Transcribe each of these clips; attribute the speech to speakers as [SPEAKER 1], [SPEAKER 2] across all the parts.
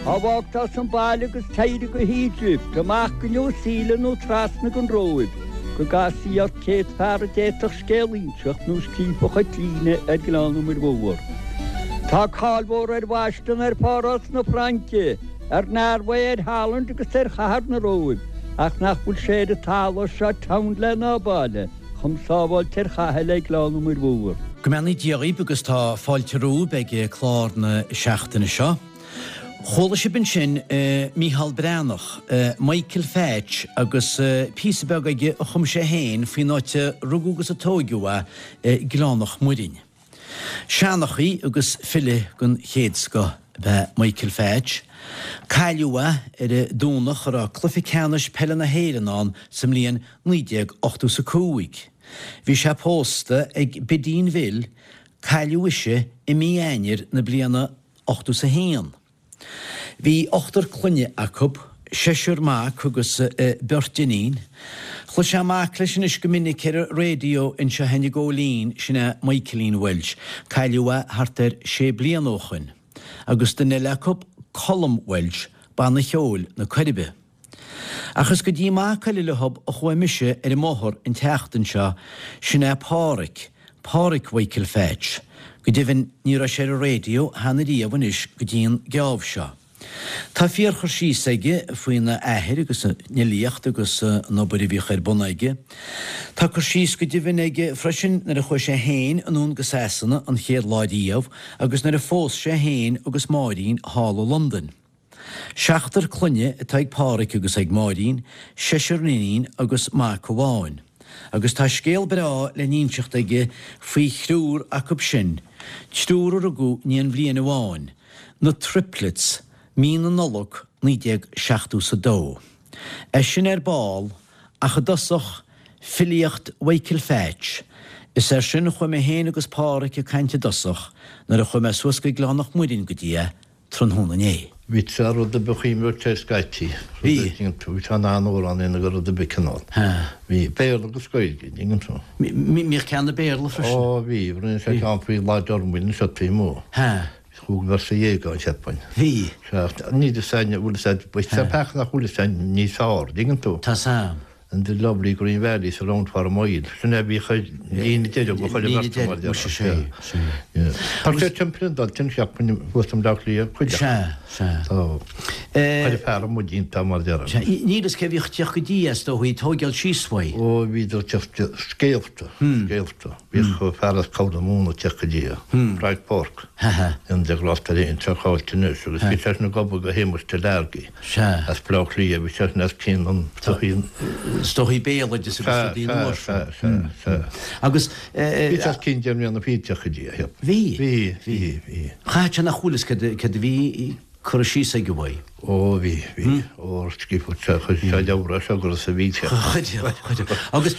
[SPEAKER 1] Á bhfágtar as an baile agus t'éirí go hEgypt, amach go New Zealand nó trasna gon Róimh, go gcasfaí ort céad fear a d'fhéadfadh scéal a inseacht nó scríobhfadh an t-líne ar Ghleann na Muir Mhór. Tá cáil mhór ar Bhoston, ar Pháras na Fraince, ar Norway, ar Holland agus ar chathair na Róimh, ach nach bhfuil sé ar an talamh seo townland ná baile chomh sábháilte ar chaithe le Gleann na Muir Mhór.
[SPEAKER 2] Go mbeannaí Dia dhaoib agus tá fáilte romhaibh ag clár na seachtaine seo. Chuala sibh ansin Mícheál Breathnach, Michael Phatch agus píosa beag aige a chum sé féin faoin áit a rugadh agus a tóigeadh é, Gleann Mhuirinn. Seanchaí agus file den chéad scoth ab ea Michael Phatch. Cailleadh é ar an Domhnach a raibh cluiche ceannais peile na hÉireann ann sa mbliain 1985. Bhí sé pósta ag Bidín Bhill, cailleadh ise i mí Eanáir na bliana 81. Bhí ochtar clainne acu, seisear mac agus beirt iníon. Chloisfeá mac leis anois go minic ar an raidió anseo i gCóilín, sin é Michaelín Walsh, cailleadh é thart ar sé bliana ó shoin, agus duine eile acu, Colm Walsh, banna cheoil na Coiribe. Ach is go dtí mac eile leothub a chuaigh mise ar an mbóthar an tseachtain seo, sin é Páraic, Páraic Mhichael Phatch. Go deimhin ní raibh sé ar an raidió cheana riamh anois go dtí an geábh seo. Tá fíorchur síos aige faoina athair agus an fhilíocht agus an obair a bhíodh ar bun aige. Tá cur síos go deimhin aige freisin nuair a chuaigh sé féin anonn go Sasana an chéad lá riamh agus nuair a phós sé féin agus Máirín thall i Londain. Seachtar clainne atá ag Páraic agus ag Máirín, seisear iníon agus mac amháin. Agus tá scéal breá le n-inseacht aige faoi thriúr acub sin, triúr a rugadh in aon bhliain amháin, na Triplets, mí na Nollag 1972. É sin ar ball, ach i dtosach, filíocht Mhichael Phatch. Is air sin a chuaigh mé féin agus Páraic ag caint i dtosach, nuair a chuaigh mé suas go Gleann Mhuirinn go dtí é, tráthnóna inné.
[SPEAKER 3] Bhí sé rud ar bith chuimhneamh ar scaití.
[SPEAKER 2] Bhí.
[SPEAKER 3] Bhí sé in ann amhrán a dhéanamh de rud ar bith cineál. Bhí. Béarla agus Gaeilge, an dtuigeann tú.
[SPEAKER 2] Bhíodh ceann i Béarla freisin.
[SPEAKER 3] Ó bhí. Rinne sé ceann faoi Lá Dormain anseo taobh amuigh. Chúig véarsa dhéag ann, cheapfainn.
[SPEAKER 2] Bhí.
[SPEAKER 3] Sea. Níl fhios a'inn an bhfuil fhios a'd, bhí sé peaca nach bhfuil fhios a'inn níos fearr, an dtuigeann tú.
[SPEAKER 2] Tá 'fhios a'm.
[SPEAKER 3] And the lovely green valley surround for a mile. Sin é a bhíodh ar líne deireadh go chuile bheirt mar
[SPEAKER 2] Líne deireadh, muise, sea,
[SPEAKER 3] sea. Tá sé timpeall an dul, cheapfainn, thuas i mBleá Cliath, cuid acu.
[SPEAKER 2] Sea, sea.
[SPEAKER 3] Tá chuile fear amuigh iontach mar déarfainn.
[SPEAKER 2] Sea, níl fhios cé bhíodh ag teacht go dtí é, is dóichí, tóigeáil síos uaidh.
[SPEAKER 3] Ó, bhíodar ag teacht, scéalta, scéalta. Bhíodh fear as Corr na Móna ag teacht go dtí é, Frank Burke. An de ghrásta ar aon teach áilte anois agus bhí seisean ag obair do Shéamus Delargy.
[SPEAKER 2] Sea.
[SPEAKER 3] As Baile Átha Cliath, bhí seisean os cionn an tsochaí.
[SPEAKER 2] Is dóichí béaloideas agus rudaí
[SPEAKER 3] nua
[SPEAKER 2] mar
[SPEAKER 3] sin. Sea, sea, sea, sea.
[SPEAKER 2] Agus.
[SPEAKER 3] Bhí sé os cionn 10 mbliana fichead ag teacht go dtí é, cheap.
[SPEAKER 2] Bhí.
[SPEAKER 3] Bhí, bhí, bhí.
[SPEAKER 2] Chaithfeadh sé nach bhfuil fhios céard a bhí curtha síos aige uaidh.
[SPEAKER 3] Ó, bhí, bhí. Ó, scríobhadh sé, chuir sé leabhar as agus a bhí sé.
[SPEAKER 2] Chuir, chuir. Agus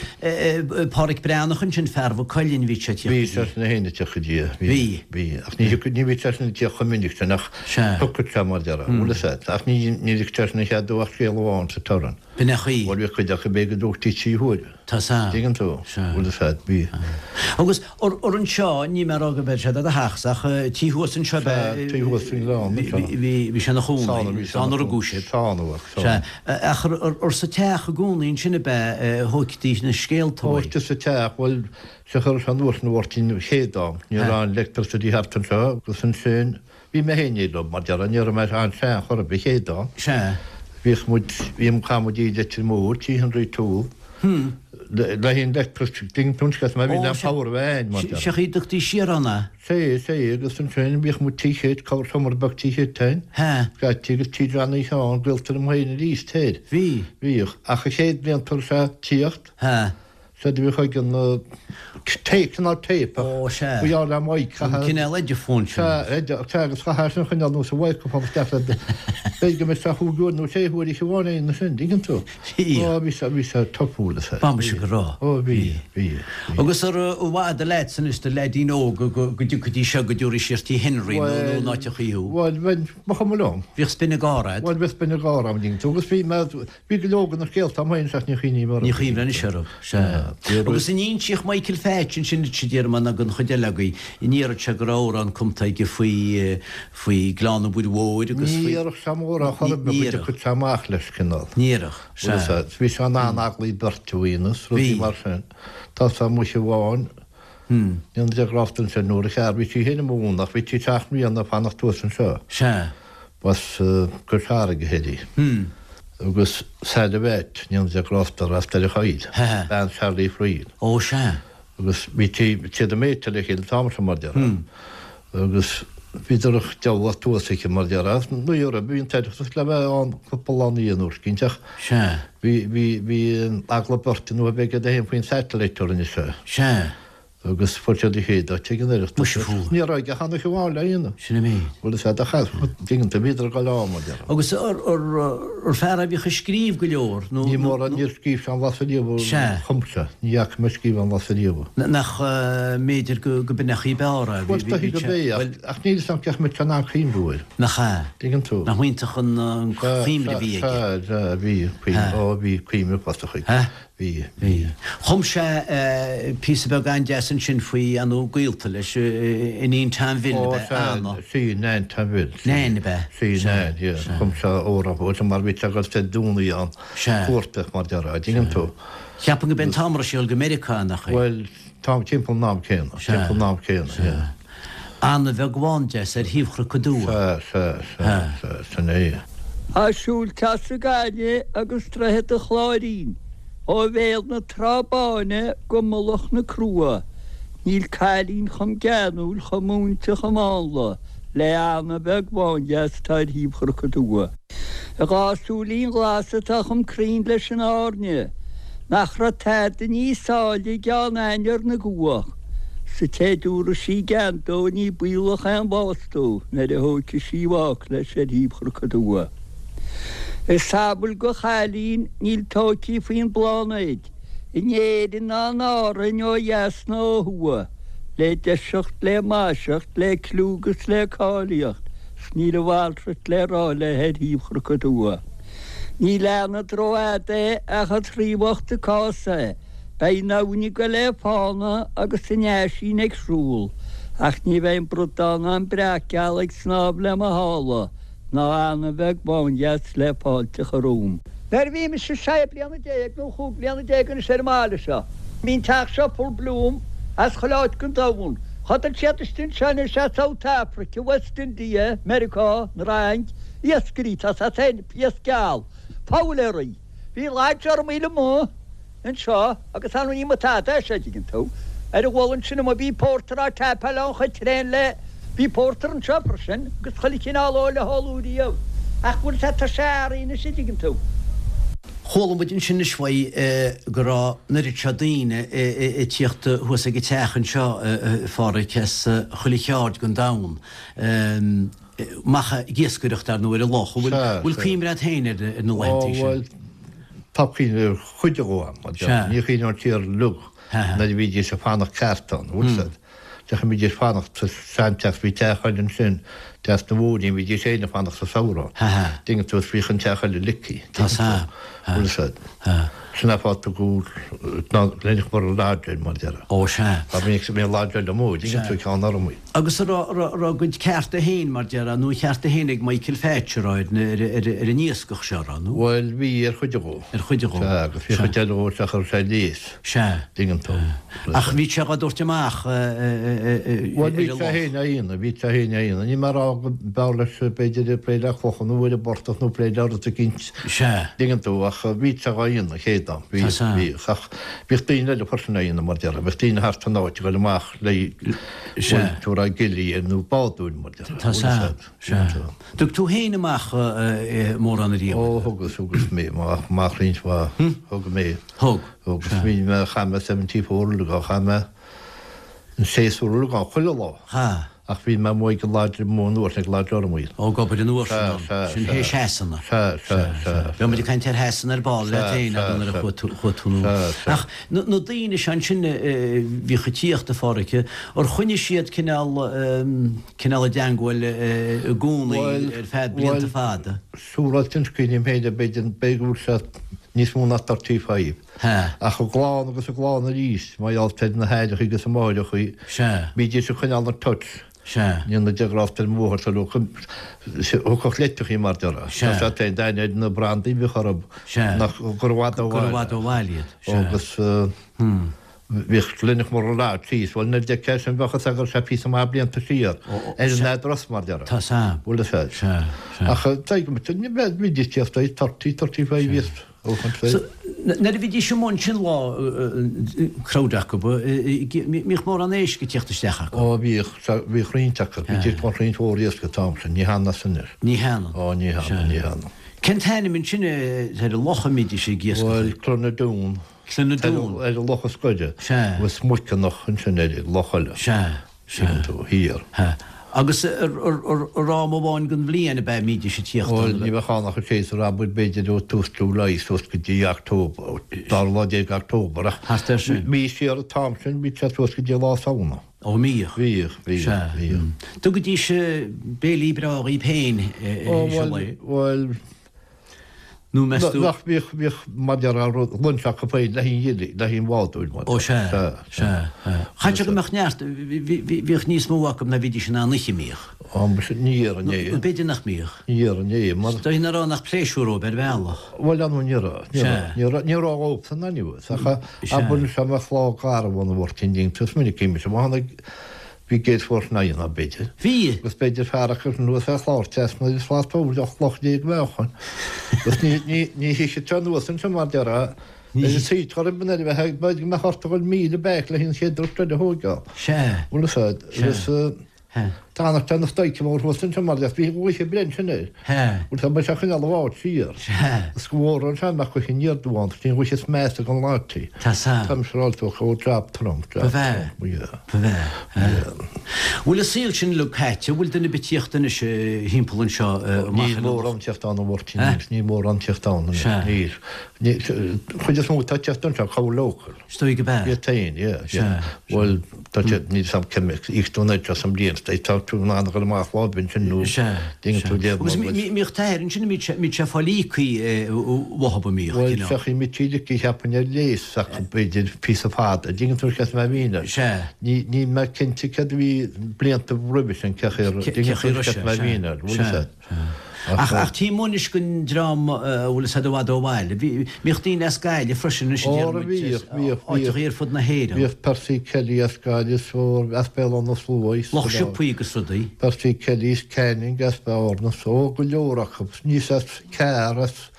[SPEAKER 2] Páraic Breathnach ansin, fear Mhaigh Cuilinn, bhí sé ag teacht go dtí.
[SPEAKER 3] Bhí seisean féin ag teacht go dtí é.
[SPEAKER 2] Bhí.
[SPEAKER 3] Bhí. Ach ní thiocfadh, ní bhí seisean ag teacht chomh minic sin ach.
[SPEAKER 2] Sea.
[SPEAKER 3] Thiocfadh sé mar déarfá, bhfuil fhios a'd. Ach ní ligtear seisean a chead dó ach scéal amháin sa turas.
[SPEAKER 2] B'in é an chaoi.
[SPEAKER 3] Bhuel, bhí cuid acu b'fhéidir go dtógtaí trí huaire.
[SPEAKER 2] Tá 'fhios a'm.
[SPEAKER 3] Tuigeann tú?
[SPEAKER 2] Sea.
[SPEAKER 3] Bhfuil fhios a'd, bhí.
[SPEAKER 2] Agus ar anseo, níl mé ag rá go mbeidh sé do do theachsa ach tí thuas anseo
[SPEAKER 3] be. Sea, tí thuas faoin ngleann anseo.
[SPEAKER 2] Bhí, bhí sé ina chónaí. Sá ina rugadh sibh.
[SPEAKER 3] Sá ina bhfuil, sá.
[SPEAKER 2] Sea. Ach ar sa teach i gcónaí ansin ab ea a thóigtí na scéalta uaidh?
[SPEAKER 3] Thóigtí sa teach, bhuel, Sea chuir sé anuas na Mháirtín Chéadán, ní raibh an electricity thart anseo agus ansin bhí mé féin leo mar déarfá, ní raibh mé an-sean chor ar bith Chéadán.
[SPEAKER 2] Sea.
[SPEAKER 3] Bhíodh muid, bhí, chaith muid i Leitir Móir, Tí Henry Toole, le haghaidh an electricity, tuigeann tú an scéal, mar bhí an power a bheith ann mar déarfá.
[SPEAKER 2] Sea, dtugtaí siar ann é.
[SPEAKER 3] Sea, sea, agus ansin bhíodh muid Tí Chéit, corr seomra beag Tí Chéit ann.
[SPEAKER 2] Sea.
[SPEAKER 3] Scaití agus Tí Johnny Sheáin, gaolta liom féin arís thoir.
[SPEAKER 2] Bhí.
[SPEAKER 3] Bhíodh, ach an chéad bhliain tar éis a tíocht.
[SPEAKER 2] Sea.
[SPEAKER 3] Sea, do bhíodh ag an tape, cineál tape ach
[SPEAKER 2] Ó, sea.
[SPEAKER 3] ba ghearr le mic,
[SPEAKER 2] An cineál ediphone sin.
[SPEAKER 3] Sea, edi, sea, agus chaithfeá sin a choinneáil anuas an microphone isteach le, b'fhéidir go mbeadh sé chúig uair nó sé huaire oíche amháin é ansin, dtuigeann tú?
[SPEAKER 2] Bhí.
[SPEAKER 3] Ó, bhí sé, bhí sé topúil, sea.
[SPEAKER 2] Ba mise go raibh.
[SPEAKER 3] Ó, bhí, bhí, bhí.
[SPEAKER 2] Agus ar mhaith do leaids anois, do leaidín óg, go dtiocfaidís seo, go dtabharfaí siar Tí Henry nó nó in áiteachaí thú?
[SPEAKER 3] Bhuel, bhuel, ba chuma liom.
[SPEAKER 2] Bhíodh spion gáire a'd.
[SPEAKER 3] Bhuel, bhíodh spion gáire a'm, dtuigeann tú, agus bhí mé, Bhí go leor de na scéalta agam féin ach ní chuimhním orthu.
[SPEAKER 2] Ní chuimhin anois orthu, sea. Agus an insíodh Michael Phatch ansin duit a Diarmaid nó don chuid eile agaibh, an ndéarfadh sé go raibh amhrán cumtha aige faoi, faoi Ghleann an Mhuir Mhóir agus
[SPEAKER 3] faoi. Ní dhéarfadh sé mórán chor ar bith, go dtiocfadh sé amach leis, cineál.
[SPEAKER 2] Ní dhéarfadh, sea.
[SPEAKER 3] Bhí sé in ann eaglaí beirte a dhéanamh, rudaí mar sin. Tá sé amuigh amháin, Ní de ghrásta ansin nuair a chear, bhí sí féin i mo bhun ach bhí sí seacht mbliana ag fanacht thuas anseo.
[SPEAKER 2] Sea.
[SPEAKER 3] B'as Cois Fharraige thiar í. Agus Sally Mheait, ní de ghrásta, as Doire Choill. Bean Charlie Friel.
[SPEAKER 2] Ó sea.
[SPEAKER 3] Agus bhí siad ag méiteáil le chéile an t-am sin mar déarfá. Agus bhíodar ag deabhadh thuas aici mar déarfá. Ní raibh, bhí an tOireachtas le bheith ann cúpla lá ina dhiaidh an uair eicínt ach
[SPEAKER 2] Sea.
[SPEAKER 3] bhí, bhí, bhí eagla beirte nó a bheith aige féin faoin satellite a rinne sé.
[SPEAKER 2] Sea.
[SPEAKER 3] Agus fuair siad a chéad áit ag an Oireachtas.
[SPEAKER 2] Muise fuair.
[SPEAKER 3] Ní raibh aige ach an oíche amháin le dhéanamh.
[SPEAKER 2] Sin an méid.
[SPEAKER 3] Bhuel is ea do chaith, dtuigeann tú, bhíodar ag dul ann mar déarfá.
[SPEAKER 2] Agus ar fear a bhíodh ag scríobh go leor
[SPEAKER 3] nó. Ní mórán, níor scríobh sé aon bhlas ariamh a
[SPEAKER 2] Sea.
[SPEAKER 3] chum sé. Ní fhaca mé scríobh aon bhlas ariamh.
[SPEAKER 2] Nach mb'fhéidir go b'in an chaoi ab fhearr é.
[SPEAKER 3] Bhuel, is dóichí gurb é, ach níl 'fhios a'm cén chaoi a mbeadh sé in ann cuimhniú air.
[SPEAKER 2] Nach ea?
[SPEAKER 3] Tuigeann tú.
[SPEAKER 2] Nach iontach an chuimhne a bhí aige.
[SPEAKER 3] Sea, sea, bhí, ó bhí cuimhne uafásach aige. Bhí.
[SPEAKER 2] Bhí. Chum sé píosa beag an-deas ansin faoi, ar ndóigh, gaolta leis, iníon Tom Bhill, ab
[SPEAKER 3] Ó,
[SPEAKER 2] ea?
[SPEAKER 3] sea,
[SPEAKER 2] Anna.
[SPEAKER 3] sí, Nain Tom Bhill.
[SPEAKER 2] Sí. Nain, ab ea?
[SPEAKER 3] Sí,
[SPEAKER 2] Sea,
[SPEAKER 3] Nain, yeah.
[SPEAKER 2] sea.
[SPEAKER 3] Chum sé amhrán fúithi, mar bhí sé ag dul Dé Domhnaigh ann,
[SPEAKER 2] Sea.
[SPEAKER 3] cuartach, mar déarfá, dtuigeann tú.
[SPEAKER 2] Cheapfainn go b'é an t-am a raibh sí ag dul go Meiriceá, nach é?
[SPEAKER 3] Bhuel, tá, timpeall an am céanna,
[SPEAKER 2] Sea.
[SPEAKER 3] timpeall an am céanna,
[SPEAKER 2] Sea.
[SPEAKER 3] yeah.
[SPEAKER 2] Anna bheag bhán deas ar thaobh Chnoc an Dua.
[SPEAKER 3] Sea, sea, sea, sea, sin é.
[SPEAKER 1] Tá siúl as an Gaillimh agus Droichead an Chláirín, ó bhéal na Trá Báine go mullach na Crua, níl cailín chomh geanúil, chomh múinte, chomh mánla le Anna bheag bhándeas atá ar thaobh Chnoc an Dua. A dhá súilín ghlasa atá chomh cruinn leis an airne, nach raibh tada níos áille i gCeann Ainnir na gcuach, 's an té dtabharfaidh sí gean dó ní baolach aon bhás dó nuair a thógfaidh sí i bhfách leis ar thaobh Chnoc an Dua. Is samhail go chailín níl tóigthí faoin bpláinéid, in Éirinn ná in Árainn ó dheas ná ó thuaidh, le deiseacht, le maiseacht, le cliú 'gus le cáilíocht, 's níl a mhalrait le rá léi ar thaobh Chnoc an Dua. Ní leanfad rófhada é ach an traí bhocht an cás é, beidh an abhainn ag goil le fána agus an eaisín ag siúl, ach ní bheidh an bradán ná an breac geal ag snámh le mo shála, ná Anna bheag bhándheas le fáilte a chur romham. Nuair a bhí mise sé bliana nó chúig bliana anois ar an mbaile seo, bhí an teach seo full bloom as chuile áit den domhan. Chodail siad istigh anseo anois as South Africa, West India, Meiriceá, an Fhrainc, iascairí, tá a fhios a'd, iasc geal, foghlaeirí. Bhí lodge ormaíl amuigh anseo agus ar ndóigh ní mba tada é seo, dtuigeann tú. Ar an mhullach ansin amuigh bhí pórtar á taipeáil ann chuir traein le, bhí pórtar anseo freisin agus chuile chineál óil le hóladh riamh. Ach bhfuil sé, tá sé athraithe anois a dtuigeann tú.
[SPEAKER 2] Chuala muid ansin anois uaidh go raibh an oiread seo daoine ag tíocht thuas ag an teach anseo, a Pháraic, as chuile cheárd den domhan. Amach ag iascaireacht ar ndóigh ar an loch. An bhfuil cuimhne agat féin ar na laethanta
[SPEAKER 3] sin? Ó bhuel, tá cuimhne ar chuid dhó a'm. Ní chuimhním siar uilig nuair a bhídís ag fanacht ceart ann, bhfuil 'fhios a'd. Deachaigh bhídís ag fanacht sa seanteach, bhí teach eile ansin, teach na Mhóirín, bhídís féin ag fanacht sa samhradh. Dtuigeann tú, is bhíodh an teach eile leaky. Tá 'fhios a'd. Bhfuil 'fhios a'd. Sin an fáth a tugadh Glenach Murroe Lodge air mar déarfá.
[SPEAKER 2] Ó sea.
[SPEAKER 3] Mar bhí an lodge eile amuigh, dtuigeann tú, ceann Ormaí.
[SPEAKER 2] Agus an raibh a gcuid cearta féin, mar déarfá, nó a chearta féin ag Michael Phatch, an raibh, ar an iascach seo, an raibh, nó?
[SPEAKER 3] Bhuel, bhí, ar chuid dhó.
[SPEAKER 2] Ar chuid dhó.
[SPEAKER 3] Sea, agus bhí chuid eile dhó isteach a raibh sé léas.
[SPEAKER 2] Sea.
[SPEAKER 3] Dtuigeann tú.
[SPEAKER 2] Ach bhí sé dhá dtabhairt amach ar
[SPEAKER 3] an loch. Bhuel, bhí sé féin á dhéanamh, bhí sé féin á dhéanamh. Níl mé ag rá go mb'fhearr leis, b'fhéidir, plé le clocha nó ar an bportach nó plé le rud eicínt.
[SPEAKER 2] Sea.
[SPEAKER 3] Dtuigeann tú, ach bhí sé dhá dhéanamh, chéad am. Bhí, bhí. Ach bhíodh daoine eile freisin á dhéanamh, mar déarfá. Bhíodh daoine thart an áit ag dul amach le,
[SPEAKER 2] Sea.
[SPEAKER 3] bhuel, tú ag rá gilly nó bádúin, mar déarfá.
[SPEAKER 2] Tá sea. Sea. Dtug tú féin amach mórán ariamh?
[SPEAKER 3] Ó, thugas, thugas mé amach roinnt mhaith. Thug mé.
[SPEAKER 2] Thug.
[SPEAKER 3] Thugas. Bhí mé, chaith mé 74 uilig ann, chaith mé an séasúr uilig ann, chuile lá.
[SPEAKER 2] Ha.
[SPEAKER 3] Ach bhí mé amuigh ag an Lodge amuigh an uair sin, ag Lodge Ormaíl.
[SPEAKER 2] Ó, ag obair an uair sin ann.
[SPEAKER 3] Sea, sea,
[SPEAKER 2] Sin
[SPEAKER 3] sea.
[SPEAKER 2] théis Shasana.
[SPEAKER 3] Sea, sea, sea.
[SPEAKER 2] Bheadh muid ag caint ar Shasana ar ball leat féin
[SPEAKER 3] Sea,
[SPEAKER 2] nuair a
[SPEAKER 3] sea,
[SPEAKER 2] chuaigh tú, chuaigh tú
[SPEAKER 3] sea, sea.
[SPEAKER 2] Ach na, na daoine seo ansin a bhíodh ag tíocht, a Pháraic, ar choinnigh siad cineál, cineál i dteangmháil i gcónaí
[SPEAKER 3] Bhuel,
[SPEAKER 2] ar feadh blianta
[SPEAKER 3] bhuel,
[SPEAKER 2] fada?
[SPEAKER 3] siúráilte anois cuimhním féin, b'fhéidir, b'fhéidir go bhfuil sé. Níos mó ná 35.
[SPEAKER 2] Sea.
[SPEAKER 3] Ach an gclann agus an gclann arís, mar gheall ar na haithreachaí agus na máithreachaí.
[SPEAKER 2] Sea.
[SPEAKER 3] Bhídís ag coinneáil an touch.
[SPEAKER 2] Sea.
[SPEAKER 3] Ní na deagrásta ar mháthair sa ló thiocfadh leitreachaí mar déarfá.
[SPEAKER 2] Sea.
[SPEAKER 3] Tá sé féin d'aithne ar na brandaí a bhíodh orthu.
[SPEAKER 2] Sea.
[SPEAKER 3] Nach gur i bhfad ó
[SPEAKER 2] Gur i bhfad ó bhaile iad. Sea.
[SPEAKER 3] Agus bhíodh Learnach Lodge thíos, bhuel nuair a d'fheicfeá sin bheadh fhios agat go raibh sé píosa maith blianta siar ar an address mar déarfá.
[SPEAKER 2] Tá sam.
[SPEAKER 3] Bhfuil fhios agat.
[SPEAKER 2] Sea, sea.
[SPEAKER 3] Ach tuigim, bhídís tíocht ag 30, 35 years ó chun
[SPEAKER 2] So, nuair a bhídís amuigh ansin lá crowd acu, mbíodh mórán éisc ag tíocht isteach acu?
[SPEAKER 3] Ó bhíodh, bhíodh roinnt acu, bhídís ag baint roinnt mhór iasc an t-am sin, ní hionann is anois.
[SPEAKER 2] Ní hionann.
[SPEAKER 3] Ó ní hionann, ní hionann.
[SPEAKER 2] Cén t-ainm ansin ar an loch a mbídís ag iascach?
[SPEAKER 3] Bhuel, Cluanadoon.
[SPEAKER 2] Cluanadoon.
[SPEAKER 3] Ar an loch is gaire.
[SPEAKER 2] Sea.
[SPEAKER 3] Agus Muiceanach ansin ar an loch eile.
[SPEAKER 2] Sea. Sea.
[SPEAKER 3] Tuigeann tú, thiar.
[SPEAKER 2] Sea. Agus ar am amháin den bhliain ab ea a mbídís ag tíocht
[SPEAKER 3] Bhuel, ní bheadh ann ach an séasúr abair b'fhéidir ó tús July suas go dtí October, dara lá déag October ach
[SPEAKER 2] Thart air sin.
[SPEAKER 3] bhí siar an t-am sin, bhí sé suas go dtí lá Samhna.
[SPEAKER 2] Ó, mbíodh.
[SPEAKER 3] Bhíodh, bhíodh,
[SPEAKER 2] Sea.
[SPEAKER 3] bhíodh.
[SPEAKER 2] Dtugaidís béilí breá dhaoib féin
[SPEAKER 3] Ó, bhuel, bhuel,
[SPEAKER 2] Nó meas tú.
[SPEAKER 3] Nach bhíodh, bhíodh mar déarfá rud, lunch acu féin le haghaidh an ghillie, le haghaidh an bhádóir mar.
[SPEAKER 2] Ó sea, sea, sea. Chaithfeadh sé go mbeadh neart, bhíodh níos mó acu ná bhídís in ann ithe, an mbíodh?
[SPEAKER 3] Ó, muise, ní dhéarfainn é.
[SPEAKER 2] Nó b'fhéidir nach mbíodh.
[SPEAKER 3] Ní dhéarfainn é, mar.
[SPEAKER 2] Is dóigh nach raibh ann ach pléisiúr dóibh ar bhealach.
[SPEAKER 3] Bhuel, ar ndóigh ní raibh, ní raibh, ní raibh, ní raibh dhóibhsan anyways, ach abair anseo mbeadh lá garbh ann a Mháirtín ding, is minic mise, má tháinig, Bhí gale force 9 ann, b'fhéidir.
[SPEAKER 2] Bhí.
[SPEAKER 3] Agus b'fhéidir fear acu anuas ar chlár trasna agus slat bóthair de chloch déag meáchain. Agus ní, ní, ní thitfeadh sé anuas anseo mar déarfá. Ar an saoit ghorm an air a bheith, b'fhéidir go mbeadh ort a dhul 1,000 back le an chéad dturas eile a thóigeáil.
[SPEAKER 2] Sea.
[SPEAKER 3] Bhfuil fhios a'd.
[SPEAKER 2] Sea.
[SPEAKER 3] Agus
[SPEAKER 2] Sea.
[SPEAKER 3] d'fhanfadh sé ina stoic mór thuas anseo mar déarfá. Bhí an ghaoth ag breith ansin air.
[SPEAKER 2] Sea.
[SPEAKER 3] Bhuel, tá sé ag coinneáil an bhád siar.
[SPEAKER 2] Sea.
[SPEAKER 3] Is go mhór an sean nach gcuirfidh aniar dubh ann, 's ní ghuigh is measa gan láití.
[SPEAKER 2] Tá san.
[SPEAKER 3] Tá mise ráite ó chomh jab trom, jab
[SPEAKER 2] Ba bhfearr.
[SPEAKER 3] trom, yeah.
[SPEAKER 2] Ba bhfearr.
[SPEAKER 3] Yeah.
[SPEAKER 2] Bhfuil an saol sin uilig caite? Bhfuil duine ar bith ag tíocht anois thimpeall anseo amach
[SPEAKER 3] Níl
[SPEAKER 2] ar an
[SPEAKER 3] mórán tíocht ann a Mháirtín,
[SPEAKER 2] Eh?
[SPEAKER 3] níl mórán tíocht ann anois,
[SPEAKER 2] Sea.
[SPEAKER 3] níl. Ní, chuid is mó atá ag tíocht anseo, cabhair local.
[SPEAKER 2] Is dóigh go b'ea.
[SPEAKER 3] Iad féin, yeah, yeah.
[SPEAKER 2] Sea.
[SPEAKER 3] Bhuel, tá siad, níl 's a'm cé mhéad íoc tú anois as an mbliain, tá tú in ann a dhul amach lá ar bith ansin nó
[SPEAKER 2] Sea,
[SPEAKER 3] déanann
[SPEAKER 2] sea.
[SPEAKER 3] tú léamh
[SPEAKER 2] Agus
[SPEAKER 3] mar bhfuil.
[SPEAKER 2] mbíodh t'athair ansin, an mbíodh sé ag fáil íocaí uathub, an mbíodh,
[SPEAKER 3] Bhuel,
[SPEAKER 2] cineál?
[SPEAKER 3] feachfaidh muid trí licí cheapfainn ar léas acu b'fhéidir píosa fada, dtuigeann tú cén mé mhín air.
[SPEAKER 2] Sea.
[SPEAKER 3] Ní, níl mé cinnte céard a bhí blianta roimhe sin, cé chaoi a raibh,
[SPEAKER 2] Cé
[SPEAKER 3] dtuigeann
[SPEAKER 2] chaoi
[SPEAKER 3] tú
[SPEAKER 2] a raibh
[SPEAKER 3] cén
[SPEAKER 2] sé,
[SPEAKER 3] mé
[SPEAKER 2] sea,
[SPEAKER 3] mhín air, bhfuil
[SPEAKER 2] sea,
[SPEAKER 3] fhios a'd.
[SPEAKER 2] sea. Ach, ach tím anois den dream a bhfuil fhios a'd i bhfad ó bhaile. Bhí, bhíodh daoine as Gaillimh freisin anois a
[SPEAKER 3] Ó,
[SPEAKER 2] deir muid,
[SPEAKER 3] bhíodh, bhíodh,
[SPEAKER 2] áiteachaí
[SPEAKER 3] bhíodh.
[SPEAKER 2] ar fud na hÉireann.
[SPEAKER 3] Bhíodh Percy Kelly as Gaillimh, is ó, as Béal Átha na Sluaighe, is
[SPEAKER 2] Lucht siopaí agus rudaí.
[SPEAKER 3] Percy Kelly is Canning as Bearna, is ó, go leor acu. Níos as Carr as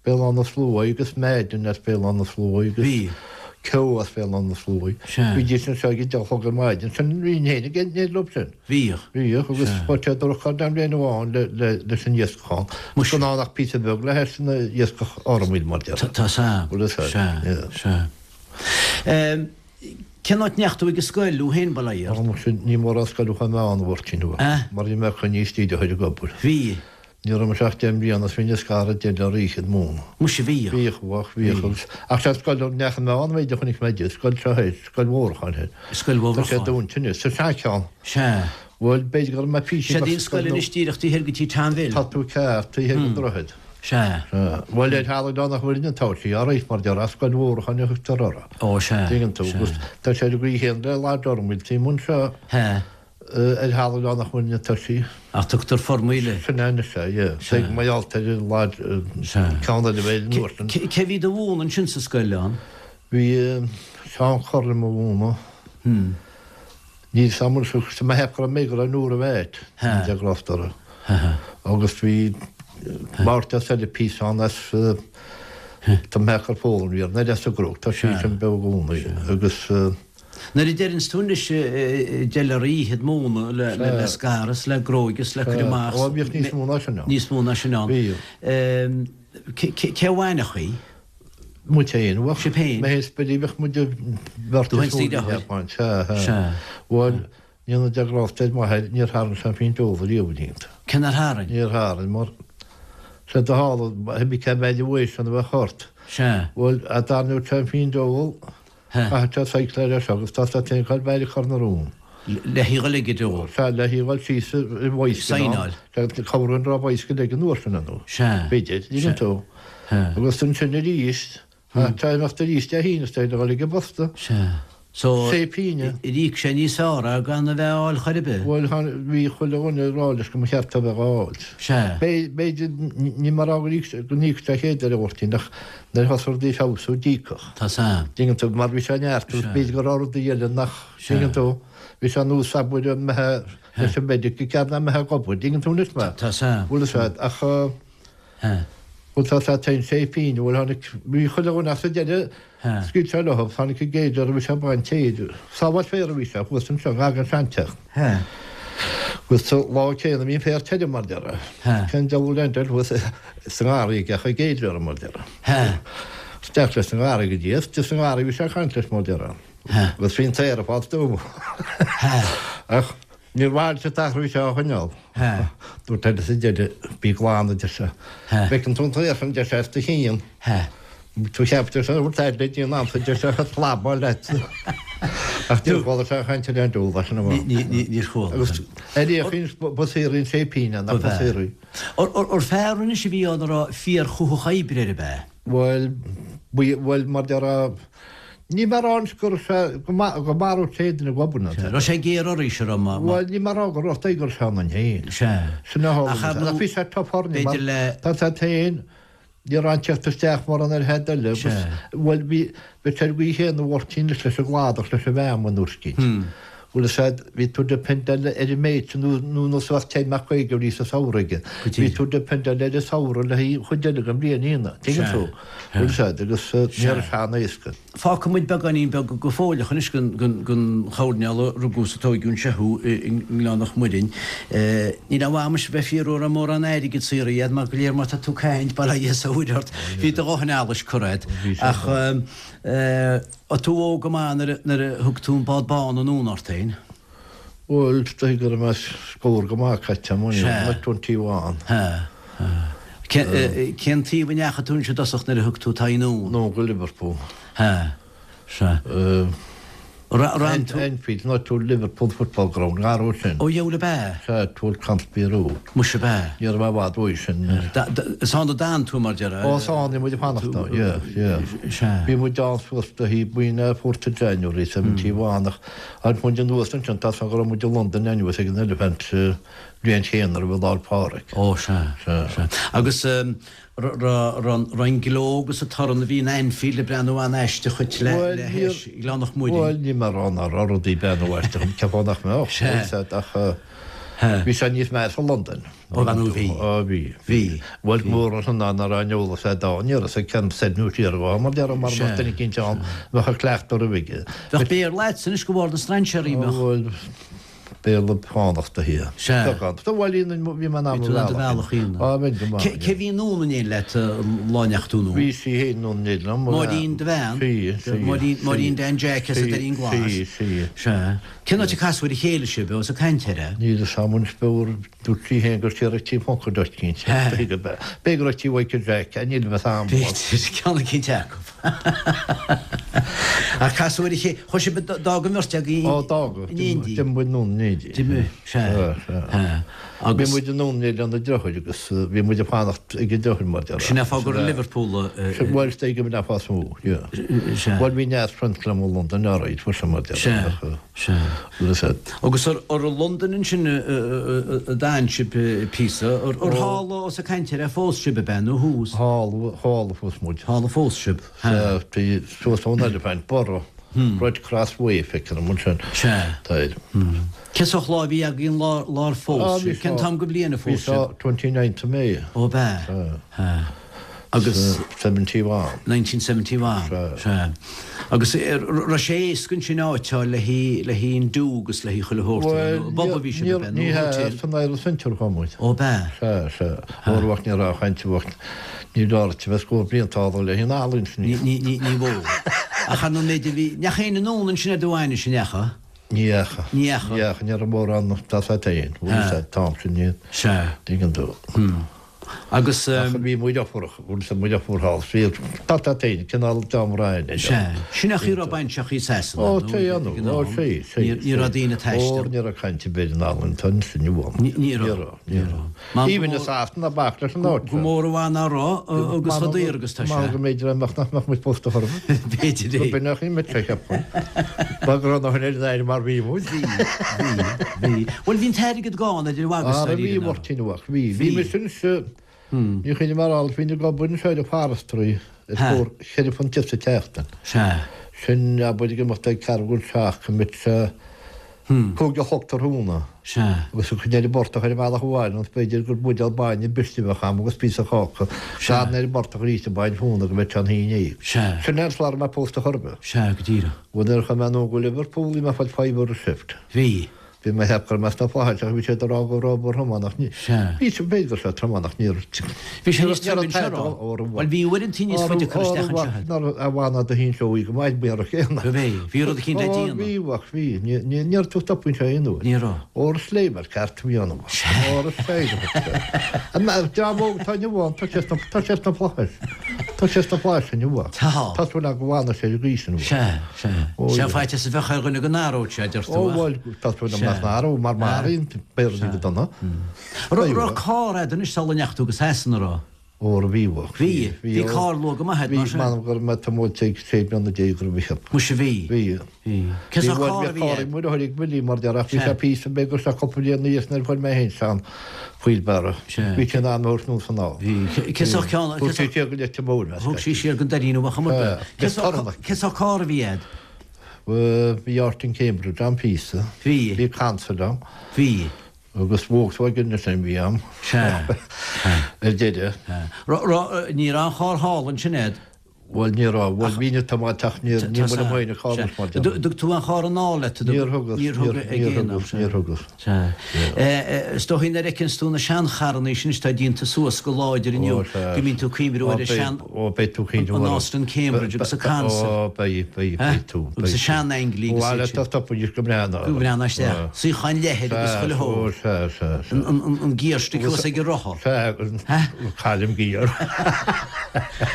[SPEAKER 3] Béal Átha na Sluaighe agus Madden as Béal Átha na Sluaighe agus
[SPEAKER 2] Bhí.
[SPEAKER 3] Keogh as Béal Átha na Sluaighe.
[SPEAKER 2] Sea.
[SPEAKER 3] Bhídís anseo ag a deich a chlog ar maidin. Sin bhínn féin ag éirí leo sin.
[SPEAKER 2] Bhíodh.
[SPEAKER 3] Bhíodh agus
[SPEAKER 2] Sea.
[SPEAKER 3] chuir sé droch-cháil dom bliain amháin le, le, leis an iascach ann.
[SPEAKER 2] Muise.
[SPEAKER 3] Gan ann ach píosa beag le hais an iascach Fhormaid mar déarfá.
[SPEAKER 2] Tá 's a'm.
[SPEAKER 3] Bhfuil fhios a'd.
[SPEAKER 2] Sea.
[SPEAKER 3] Yeah.
[SPEAKER 2] Sea. Ehm, cén áit ndeachaigh tú ag an scoil thú féin, bail ó Dhia ort?
[SPEAKER 3] Ó muise, ní mórán scoil a chuaigh mé ann a Mháirtín.
[SPEAKER 2] Eh?
[SPEAKER 3] Mar bhí mé coinnithe istigh de thoir ag obair.
[SPEAKER 2] Bhí.
[SPEAKER 3] Ní raibh mise ach deich mbliana is bhínn ag scaradh deich leor oíche ag múineadh.
[SPEAKER 2] Muise bhíodh.
[SPEAKER 3] Bhíodh, bhíodh, bhíodh agus, ach sé scoil a ndeachaigh mé ann b'fhéidir chonaic mé di, scoil seo thoir, Scoil Mhórdha thoir.
[SPEAKER 2] Scoil
[SPEAKER 3] Tá sé
[SPEAKER 2] Mhórdha.
[SPEAKER 3] dúnta anois, sa seancheann.
[SPEAKER 2] Sea.
[SPEAKER 3] Bhuel, b'fhéidir go raibh mé píosa
[SPEAKER 2] Sé í an scoil anois díreach taobh thoir go tí Tom Bhill.
[SPEAKER 3] Tá tú ceart, taobh thoir den droichead.
[SPEAKER 2] Sea.
[SPEAKER 3] Sea. Bhuel, ar thalamh Oileán Mhuirne atá sí, alright, mar déarfá, Scoil Mhórdha a thugtar uirthi.
[SPEAKER 2] Ó, sea.
[SPEAKER 3] Tuigeann tú,
[SPEAKER 2] Sea.
[SPEAKER 3] agus tá sé ar an gcaoi chéanna le Lodge Fhormaid, taobh amuigh anseo.
[SPEAKER 2] Sea.
[SPEAKER 3] Ar thalamh Oileán Mhuirne atá sí.
[SPEAKER 2] Ach tugtar Formhuile.
[SPEAKER 3] Sin é anois é, yeah.
[SPEAKER 2] Sea.
[SPEAKER 3] Tuig, mar gheall ar an Lodge,
[SPEAKER 2] Sea.
[SPEAKER 3] ceann eile a bheith ar an uair sin.
[SPEAKER 2] Cé bhí do mhúineadh ansin sa scoil ann?
[SPEAKER 3] Bhí Seán Curran mo mhúineadh. Níl 's a'm anois ach tá mé ag ceapadh go raibh mé go raibh Nóra Mheait,
[SPEAKER 2] Sea.
[SPEAKER 3] de Gloucester.
[SPEAKER 2] Sea.
[SPEAKER 3] Agus bhí Máirtín as eile píosa ann as, tá mé ag ceapadh gur Foghlaim a bhí air, nó as an gCnoc, tá sí
[SPEAKER 2] Sea.
[SPEAKER 3] sin beo i gcónaí. Agus.
[SPEAKER 2] Nuair a deireanns tú anois deich leor oíche ag múineadh le scaradh is le gróigeadh is le cur amach.
[SPEAKER 3] Ó, bhíodh níos mó ná sin ann.
[SPEAKER 2] Níos mó ná sin ann.
[SPEAKER 3] Bhíodh.
[SPEAKER 2] Cé a mhúinfeadh í?
[SPEAKER 3] Muid féin. Bheadh.
[SPEAKER 2] Sibh féin?
[SPEAKER 3] Mé féin is Billy, bheadh muid beirt
[SPEAKER 2] Tú féin is do dheartháir?
[SPEAKER 3] Sea, sea.
[SPEAKER 2] Sea.
[SPEAKER 3] Bhuel, ní na deagrásta ar m'athair, níor tharraing sé an phingin óil riamh iontu.
[SPEAKER 2] Cé nár tharraing?
[SPEAKER 3] Níor tharraing, mar sé do tharla, bhí cé mhéad uaidh sin a bheadh ort.
[SPEAKER 2] Sea.
[SPEAKER 3] Bhuel, a dtarraingeodh sé an phingin óil, Chaithfeadh sé cycle air seo agus tá sé féin ag goil beir ag cur na rún.
[SPEAKER 2] Le haghaidh dhul ag deo.
[SPEAKER 3] Sea, le haghaidh dhul síos i bhfoiscean ann.
[SPEAKER 2] Saighneáil.
[SPEAKER 3] Sea, cabhrú an raibh bicycle ag an uair sin ann.
[SPEAKER 2] Sea.
[SPEAKER 3] B'fhéidir, dtuigeann tú.
[SPEAKER 2] Sea.
[SPEAKER 3] Agus ansin arís, tá imeacht arís Dé hAoine is dóigh le dhul ag an bposta.
[SPEAKER 2] Sea. So,
[SPEAKER 3] Sé pínne.
[SPEAKER 2] ar íoc sé níos fearr é gan a bheith á fháil chor ar bith?
[SPEAKER 3] Bhuel, bhí chuile dhuine ag rá leis go mba cheart é a bheith á fháilt.
[SPEAKER 2] Sea.
[SPEAKER 3] B'fhéidir, ní mar go n-íocfadh sé chéad ar a Mháirtín ach nuair a thosaigh rudaí ag feabhsú, d'íocfadh.
[SPEAKER 2] Tá 's a'm.
[SPEAKER 3] Dtuigeann tú, mar bhí sé neart agus b'fhéidir go raibh rudaí eile nach, dtuigeann tú, bhí sé nós abair an mbeithe leis an medic i gcead ná mbeithe ag obair, dtuigeann tú anois mé?
[SPEAKER 2] Tá 's a'm.
[SPEAKER 3] Bhfuil 'fhios a'd, ach bhuel tá 's a'd téann sé féin, bhuel tháinig, bhí chuile dhuine ach sa deireadh scaoil sé leo, tháinig an gcéad fhear a bhí sé ag baint féir, sábháil féir a bhí sé, thuas anseo, gar don seanteach. Agus sa lá céanna bhí an féar tirim mar déarfá. Cén diabhal a leantar thuas sa ngarraí ag an gcéad fhear mar déarfá. Isteach leis an ngarraí go dtí is sa ngarraí bhí sé ag caint leis mar déarfá. Agus bhí an t-aer ag fáil stuama. Ach níor mhaith leis an t-athrú seo a choinneáil. Dúirt eile sa deireadh, bí glan a deir sé. Feiceann tú an t-aer sin a deir sé as do chionn. Tú cheap deir sé, bhfuil aird le déanamh ansa deir sé, a phlabáil leat. Ach níor chuala sé a chaint ar aon diabhal as sin amach.
[SPEAKER 2] Níor chuala.
[SPEAKER 3] Agus ar fhéachaint ba saothraí an sé pínne nach ba saothraí.
[SPEAKER 2] Ar fear anois a bhí ann a raibh fíorchuthach oibre air ab ea?
[SPEAKER 3] Bhuel, bhuel, mar déarfá, Ní mar ann go raibh sé, go maródh sé duine ag obair nó.
[SPEAKER 2] Sea, raibh sé géar oraibhse, raibh má.
[SPEAKER 3] Bhuel, ní mar go raibh go raibh sé ionainn féin.
[SPEAKER 2] Sea.
[SPEAKER 3] Sin a tharla. Ach ar ndóigh, bhí sé tough orainne mar tá sé féin, ní raibh an teacht isteach mar an ar head eile agus, bhuel, bhí, bhí sé ar an gcaoi chéanna a Mháirtín leis an gcladach, leis an bhfeamainn nuair scít. Bhuel, is ea, bhí tú dependáil ar an méid sin nó nó nó suas 10 mbeadh 50 bhrí sa samhradh aige. Bhí tú dependáil ar an samhradh le haghaidh chuid eile den bhliain ina, tuigeann tú? Bhuel, is ea, agus ní raibh sé an-éasca.
[SPEAKER 2] Fágfaidh muid beagáinín beag go fóilleach anois den den choirnéal a rugadh is a tóigeadh anseo thú i nGleann Loch Muirinn. Níl aon mhaith amuis a bheith ag fiafraí an raibh mórán airgid saothraithe agat mar go léir má tá tú ag caint, bail ó Dhia is a Mhuire ort, bhí do dhóthain allais curtha agat. Ach Raibh tú óg go maith nuair a thug tú an bád bán anonn ort féin?
[SPEAKER 3] Bhuel, is dóigh go raibh mé scór go maith caite agam, like 21.
[SPEAKER 2] Sea. Cén taobh a ndeachaigh tú anois i dtosach nuair a thug tú t'aghaidh anonn?
[SPEAKER 3] Anonn go Liverpool.
[SPEAKER 2] Sea. Sea.
[SPEAKER 3] Anfield, not to Liverpool Football Ground, gar ó sin.
[SPEAKER 2] Ó dheabhail ab ea?
[SPEAKER 3] Sea, towards Conisbee Road.
[SPEAKER 2] Muise ab ea?
[SPEAKER 3] Ní raibh mé i bhfad uaidh sin.
[SPEAKER 2] Is ann a d'fhan tú, mar déarfá?
[SPEAKER 3] Ó, is ann a bhí muid ag fanacht ann, yeah, yeah.
[SPEAKER 2] Sea.
[SPEAKER 3] Bhí muid ann suas go dtí faoin fourth of January, 71, ach tháinig muid anuas ansin, tá 's agam go raibh muid i Londain anuas ag an Elephant bliain chéanna roimh Lá 'le Pádraig.
[SPEAKER 2] Ó, sea, sea. Agus Raibh an gleo agus an torann a bhí in Anfield ag breathnú an-aisteach dhuit le hais Ghleann Loch Muirinn.
[SPEAKER 3] Bhuel, ní mar rá nach raibh rudaí ag breathnú aisteach, ceapfá nach mbeadh, bhfuil ach bhí sé níos measa i Londain.
[SPEAKER 2] Ó bhean ó bhí.
[SPEAKER 3] Ó bhí.
[SPEAKER 2] Bhí.
[SPEAKER 3] Bhuel, mór an ná nach raibh an eolas a'd ann, ní raibh 'fhios ag ceann soir nó siar dhó, mar déarfá mara mbeadh duine eicínt ann a bheadh ag cleachtadh roimhe aige.
[SPEAKER 2] Bheadh Béarla a'dsa anois de bharr na strainséirí, mbeadh?
[SPEAKER 3] Bhuel, Béarla fánach do thír.
[SPEAKER 2] Sea.
[SPEAKER 3] Beagán. Tá bhuel bhí mé in ann
[SPEAKER 2] Bhí tú in ann do bhealach a dhéanamh.
[SPEAKER 3] Á, bheinn go maith.
[SPEAKER 2] Cé bhí anonn in éindí leat an lá a ndeachaigh tú anonn?
[SPEAKER 3] Bhí sí féin anonn in éindí liom.
[SPEAKER 2] Máirín do bhean?
[SPEAKER 3] Sí, sí.
[SPEAKER 2] Máirín, Máirín Dan Jack as an Doirín Glas?
[SPEAKER 3] Sí, sí.
[SPEAKER 2] Sea. Cén áit a casadh ar a chéile sibh, ós ag caint air é?
[SPEAKER 3] Níl 'fhios a'm anois b'fhearr, dúirt sí féin gur siar ag tí Phuncaid duit, cinnte. B'fhéidir go raibh tí Mhichael Jack, níl 'fhios a'm.
[SPEAKER 2] B'fhéidir, ceann eicínt acu. Ach casadh ar a chéile, chuaigh sibh, d'fhág an bheirt agaibh
[SPEAKER 3] Ó, d'fhág.
[SPEAKER 2] in éindí.
[SPEAKER 3] D'imigh muid anonn in éindí.
[SPEAKER 2] D'imigh, sea.
[SPEAKER 3] Sea, sea.
[SPEAKER 2] Agus.
[SPEAKER 3] Bhí muid anonn in éindí lena deartháir agus bhí muid ag fanacht ag a deartháir mar déarfá.
[SPEAKER 2] Sin é fáth gur i Liverpool a.
[SPEAKER 3] Bhuel, is dóigh go mb'in é fáth is mó, yeah.
[SPEAKER 2] Sea.
[SPEAKER 3] Bhuel, bhí neart friends liom i Londain, alright, fuair sé mar déarfá.
[SPEAKER 2] Sea. Sea. Agus ar i Londain ansin a d'fhan sibh píosa, ar thall ós ag caint air a phós sibh ab ea nó thuas?
[SPEAKER 3] Thall, thall a phós muid.
[SPEAKER 2] Thall a phós sibh.
[SPEAKER 3] Sea, bhí suas ón Elephant, Borough, Red Cross Way, feictear dom ansin.
[SPEAKER 2] Sea.
[SPEAKER 3] Tá air.
[SPEAKER 2] Cén sórt lá a bhí agaibh an lá lá ar phós sibh? Cén t-am den bhliain a phós sibh?
[SPEAKER 3] Bhí seo 29th of May.
[SPEAKER 2] Ó ab ea?
[SPEAKER 3] Sea.
[SPEAKER 2] Sea. Agus.
[SPEAKER 3] 71.
[SPEAKER 2] 1971.
[SPEAKER 3] Sea.
[SPEAKER 2] Sea. Agus raibh sé éasca ansin áit a fháil le haghaidh, le haghaidh an do agus le haghaidh chuile shórt,
[SPEAKER 3] Bhuel,
[SPEAKER 2] nó pub a bhí sibh
[SPEAKER 3] níor,
[SPEAKER 2] ab ea, nó
[SPEAKER 3] ní hea,
[SPEAKER 2] hotel?
[SPEAKER 3] san Irish Centre a chuaigh muid.
[SPEAKER 2] Ó ab ea?
[SPEAKER 3] Sea, sea. Óir bheadh, ní raibh caint, bheadh, ní raibh a bheith scór blianta thall le haghaidh an ealaín sin.
[SPEAKER 2] Ní, ní, ní, ní mhó. Ach ar ndóigh b'fhéidir bhí, ndeachaigh éinne anonn ansin ar do bhainis, an ndeachaigh?
[SPEAKER 3] Ní dheachaigh.
[SPEAKER 2] Ní dheachaigh.
[SPEAKER 3] Ní dheachaigh, ní raibh mórán, tá a fhios agat féin, bhuel,
[SPEAKER 2] Sea.
[SPEAKER 3] an t-am sin, ní,
[SPEAKER 2] Sea.
[SPEAKER 3] tuigeann tú.
[SPEAKER 2] Hmm. Agus.
[SPEAKER 3] Ach bhí muid ofuarach, bhfuil fhios muid ofuar thall, bhí tá tá féin, cineál dream Ryan é.
[SPEAKER 2] Sea. Sin é an chaoi a raibh baintreacha i Sasana,
[SPEAKER 3] Ó, nó sea, ag an
[SPEAKER 2] ó,
[SPEAKER 3] am. sea, sea,
[SPEAKER 2] Ní ní raibh daoine ag taisteal.
[SPEAKER 3] Ó, ní raibh caint ar bith in Albain, tá an sin inniu ann.
[SPEAKER 2] Ní ní raibh.
[SPEAKER 3] Ní raibh, ní raibh.
[SPEAKER 2] Mar
[SPEAKER 3] Even i Sasana, bac leis an áit
[SPEAKER 2] Go mór i bhfad ná raibh, agus chomh daor agus tá sé.
[SPEAKER 3] Mar go mb'fhéidir nach mbeadh muid pósta chor ar
[SPEAKER 2] bith. B'fhéidir é.
[SPEAKER 3] Go b'in nach í muid, cheapfainn. Ba go raibh na hionad in Éirinn mar bhí muid.
[SPEAKER 2] Bhí, bhí, bhí. Bhuel, bhí an t-airgead gann idir mhagadh
[SPEAKER 3] is Ara bhí, a Mháirtín, bhí. Bhí, bhí mise anseo, ní chuimhním ar alt, bhínn ag obair anseo ar an forestry ar scór cheithre phunt sa tseachtain.
[SPEAKER 2] Sea.
[SPEAKER 3] Sin, abair, ag imeacht ag ceathrú chun seacht, go mbeadh sé 5 a chlog tráthnóna.
[SPEAKER 2] Sea.
[SPEAKER 3] Agus ag coinneáil an portach ar an bhealach abhaile, nó b'fhéidir gur buidéal bainne briste a bheadh a'm agus píosa cáca.
[SPEAKER 2] Sea.
[SPEAKER 3] Gan ar an bportach arís a baint fúna go mbeadh sé an haon dhéag.
[SPEAKER 2] Sea.
[SPEAKER 3] Sin é an slá a raibh mé pósta chor ar bith.
[SPEAKER 2] Sea, go díreach.
[SPEAKER 3] Bhuel, nuair a chuaigh mé anonn go Liverpool bhí mé ag fáil fiver a shift.
[SPEAKER 2] Bhí.
[SPEAKER 3] Bhí mé ag ceapadh go raibh mé sna flaithis ach bhí siad ag rá go raibh obair throm ann ach ní.
[SPEAKER 2] Sea.
[SPEAKER 3] Bhí sé, b'fhéidir go raibh sé trom ann ach ní raibh.
[SPEAKER 2] Bhí sé níos troime anseo, raibh? Bhuel bhí uaireantaí níos faide ag cur isteach anseo agat.
[SPEAKER 3] Ná a bhain do hinseoidh go maith buíonn raibh céanna.
[SPEAKER 2] Go bhí. Bhí rud eicínt le
[SPEAKER 3] Ó
[SPEAKER 2] déanamh.
[SPEAKER 3] bhí, ach bhí. Ní, ní, ní raibh tú ag stopadh anseo aon uair.
[SPEAKER 2] Ní raibh.
[SPEAKER 3] Ór is léim ar ceart a bhí ann.
[SPEAKER 2] Sea.
[SPEAKER 3] Ór is léim. An dream óg atá inniu ann, tá sé sna, tá sé sna flaithis. Tá sé sna flaithis inniu.
[SPEAKER 2] Tá.
[SPEAKER 3] Tá súil agam go bhfanfaidh sé ar an gcaoi sin.
[SPEAKER 2] Sea. Sea. Sea, faitíos a bheadh ar dhuine go n-athródh sé, a deir tú,
[SPEAKER 3] Ó,
[SPEAKER 2] ach.
[SPEAKER 3] bhuel, tá súil agam nach n-athróidh, mar maraíonn béarlaí go dona.
[SPEAKER 2] Raibh carr a'd anois sula ndeachaigh tú go Sasana, raibh?
[SPEAKER 3] Ó, raibh, bhí, bhí.
[SPEAKER 2] Bhí? Bhí carr luath go maith a'd, mar
[SPEAKER 3] sin? Bhí, m'anam go raibh mé tiomáilte ag sé bliana déag go raibh, cheap.
[SPEAKER 2] Muise, bhí.
[SPEAKER 3] Bhí.
[SPEAKER 2] Bhí. Cén sórt carr a bhí
[SPEAKER 3] Bhí,
[SPEAKER 2] a'd?
[SPEAKER 3] bhí carr ag Willie mar deir, ach bhí sé píosa beag agus sé cúpla bliain ina dhiaidh sin nuair a fuair mé féin sean wheelbarrow.
[SPEAKER 2] Sea.
[SPEAKER 3] Bhí sé in ann a thabhairt anuas anall.
[SPEAKER 2] Bhí. Cén sórt ceann?
[SPEAKER 3] Thug sé siar go Leitir Móir mé.
[SPEAKER 2] Thug sí siar go Doirín Mhacha
[SPEAKER 3] Sea.
[SPEAKER 2] Cén sórt cén sórt carr a bhí a'd?
[SPEAKER 3] Bhí Austin Cambridge ann píosa.
[SPEAKER 2] Bhí.
[SPEAKER 3] Bhí Consul ann.
[SPEAKER 2] Bhí.
[SPEAKER 3] Agus Volkswagen ansin bhí ann.
[SPEAKER 2] Sea.
[SPEAKER 3] Ar deireadh.
[SPEAKER 2] Sea. Raibh, ní raibh an charr thall ansin a'd?
[SPEAKER 3] Bhuel, ní raibh. Bhuel, bhí na tiomáint ach ní níl muid amuigh ina carr mar
[SPEAKER 2] Sea. Dtug tú an charr anall leat?
[SPEAKER 3] Níor thugas.
[SPEAKER 2] Níor thug ag aon am.
[SPEAKER 3] Níor thugas.
[SPEAKER 2] Sea. Is dóichí nuair a fheiceanns tú na seancharrannaí sin atá déanta suas go láidir inniu go mbíonn tú ag cuimhniú ar an sean,
[SPEAKER 3] Ó, beidh tú ag cuimhniú
[SPEAKER 2] an Austin Cambridge agus an Consul.
[SPEAKER 3] Ó, beidh, beidh, beidh tú.
[SPEAKER 2] Agus an sean-Anglia agus
[SPEAKER 3] iad sin. Bhuel, tá stopadh go breá ná.
[SPEAKER 2] Go breá ná isteach. Suíocháin leathair agus chuile
[SPEAKER 3] shórt. Ó, sea, sea, sea.
[SPEAKER 2] An gearstick thuas ag an rotha.
[SPEAKER 3] Sea, caillim giar.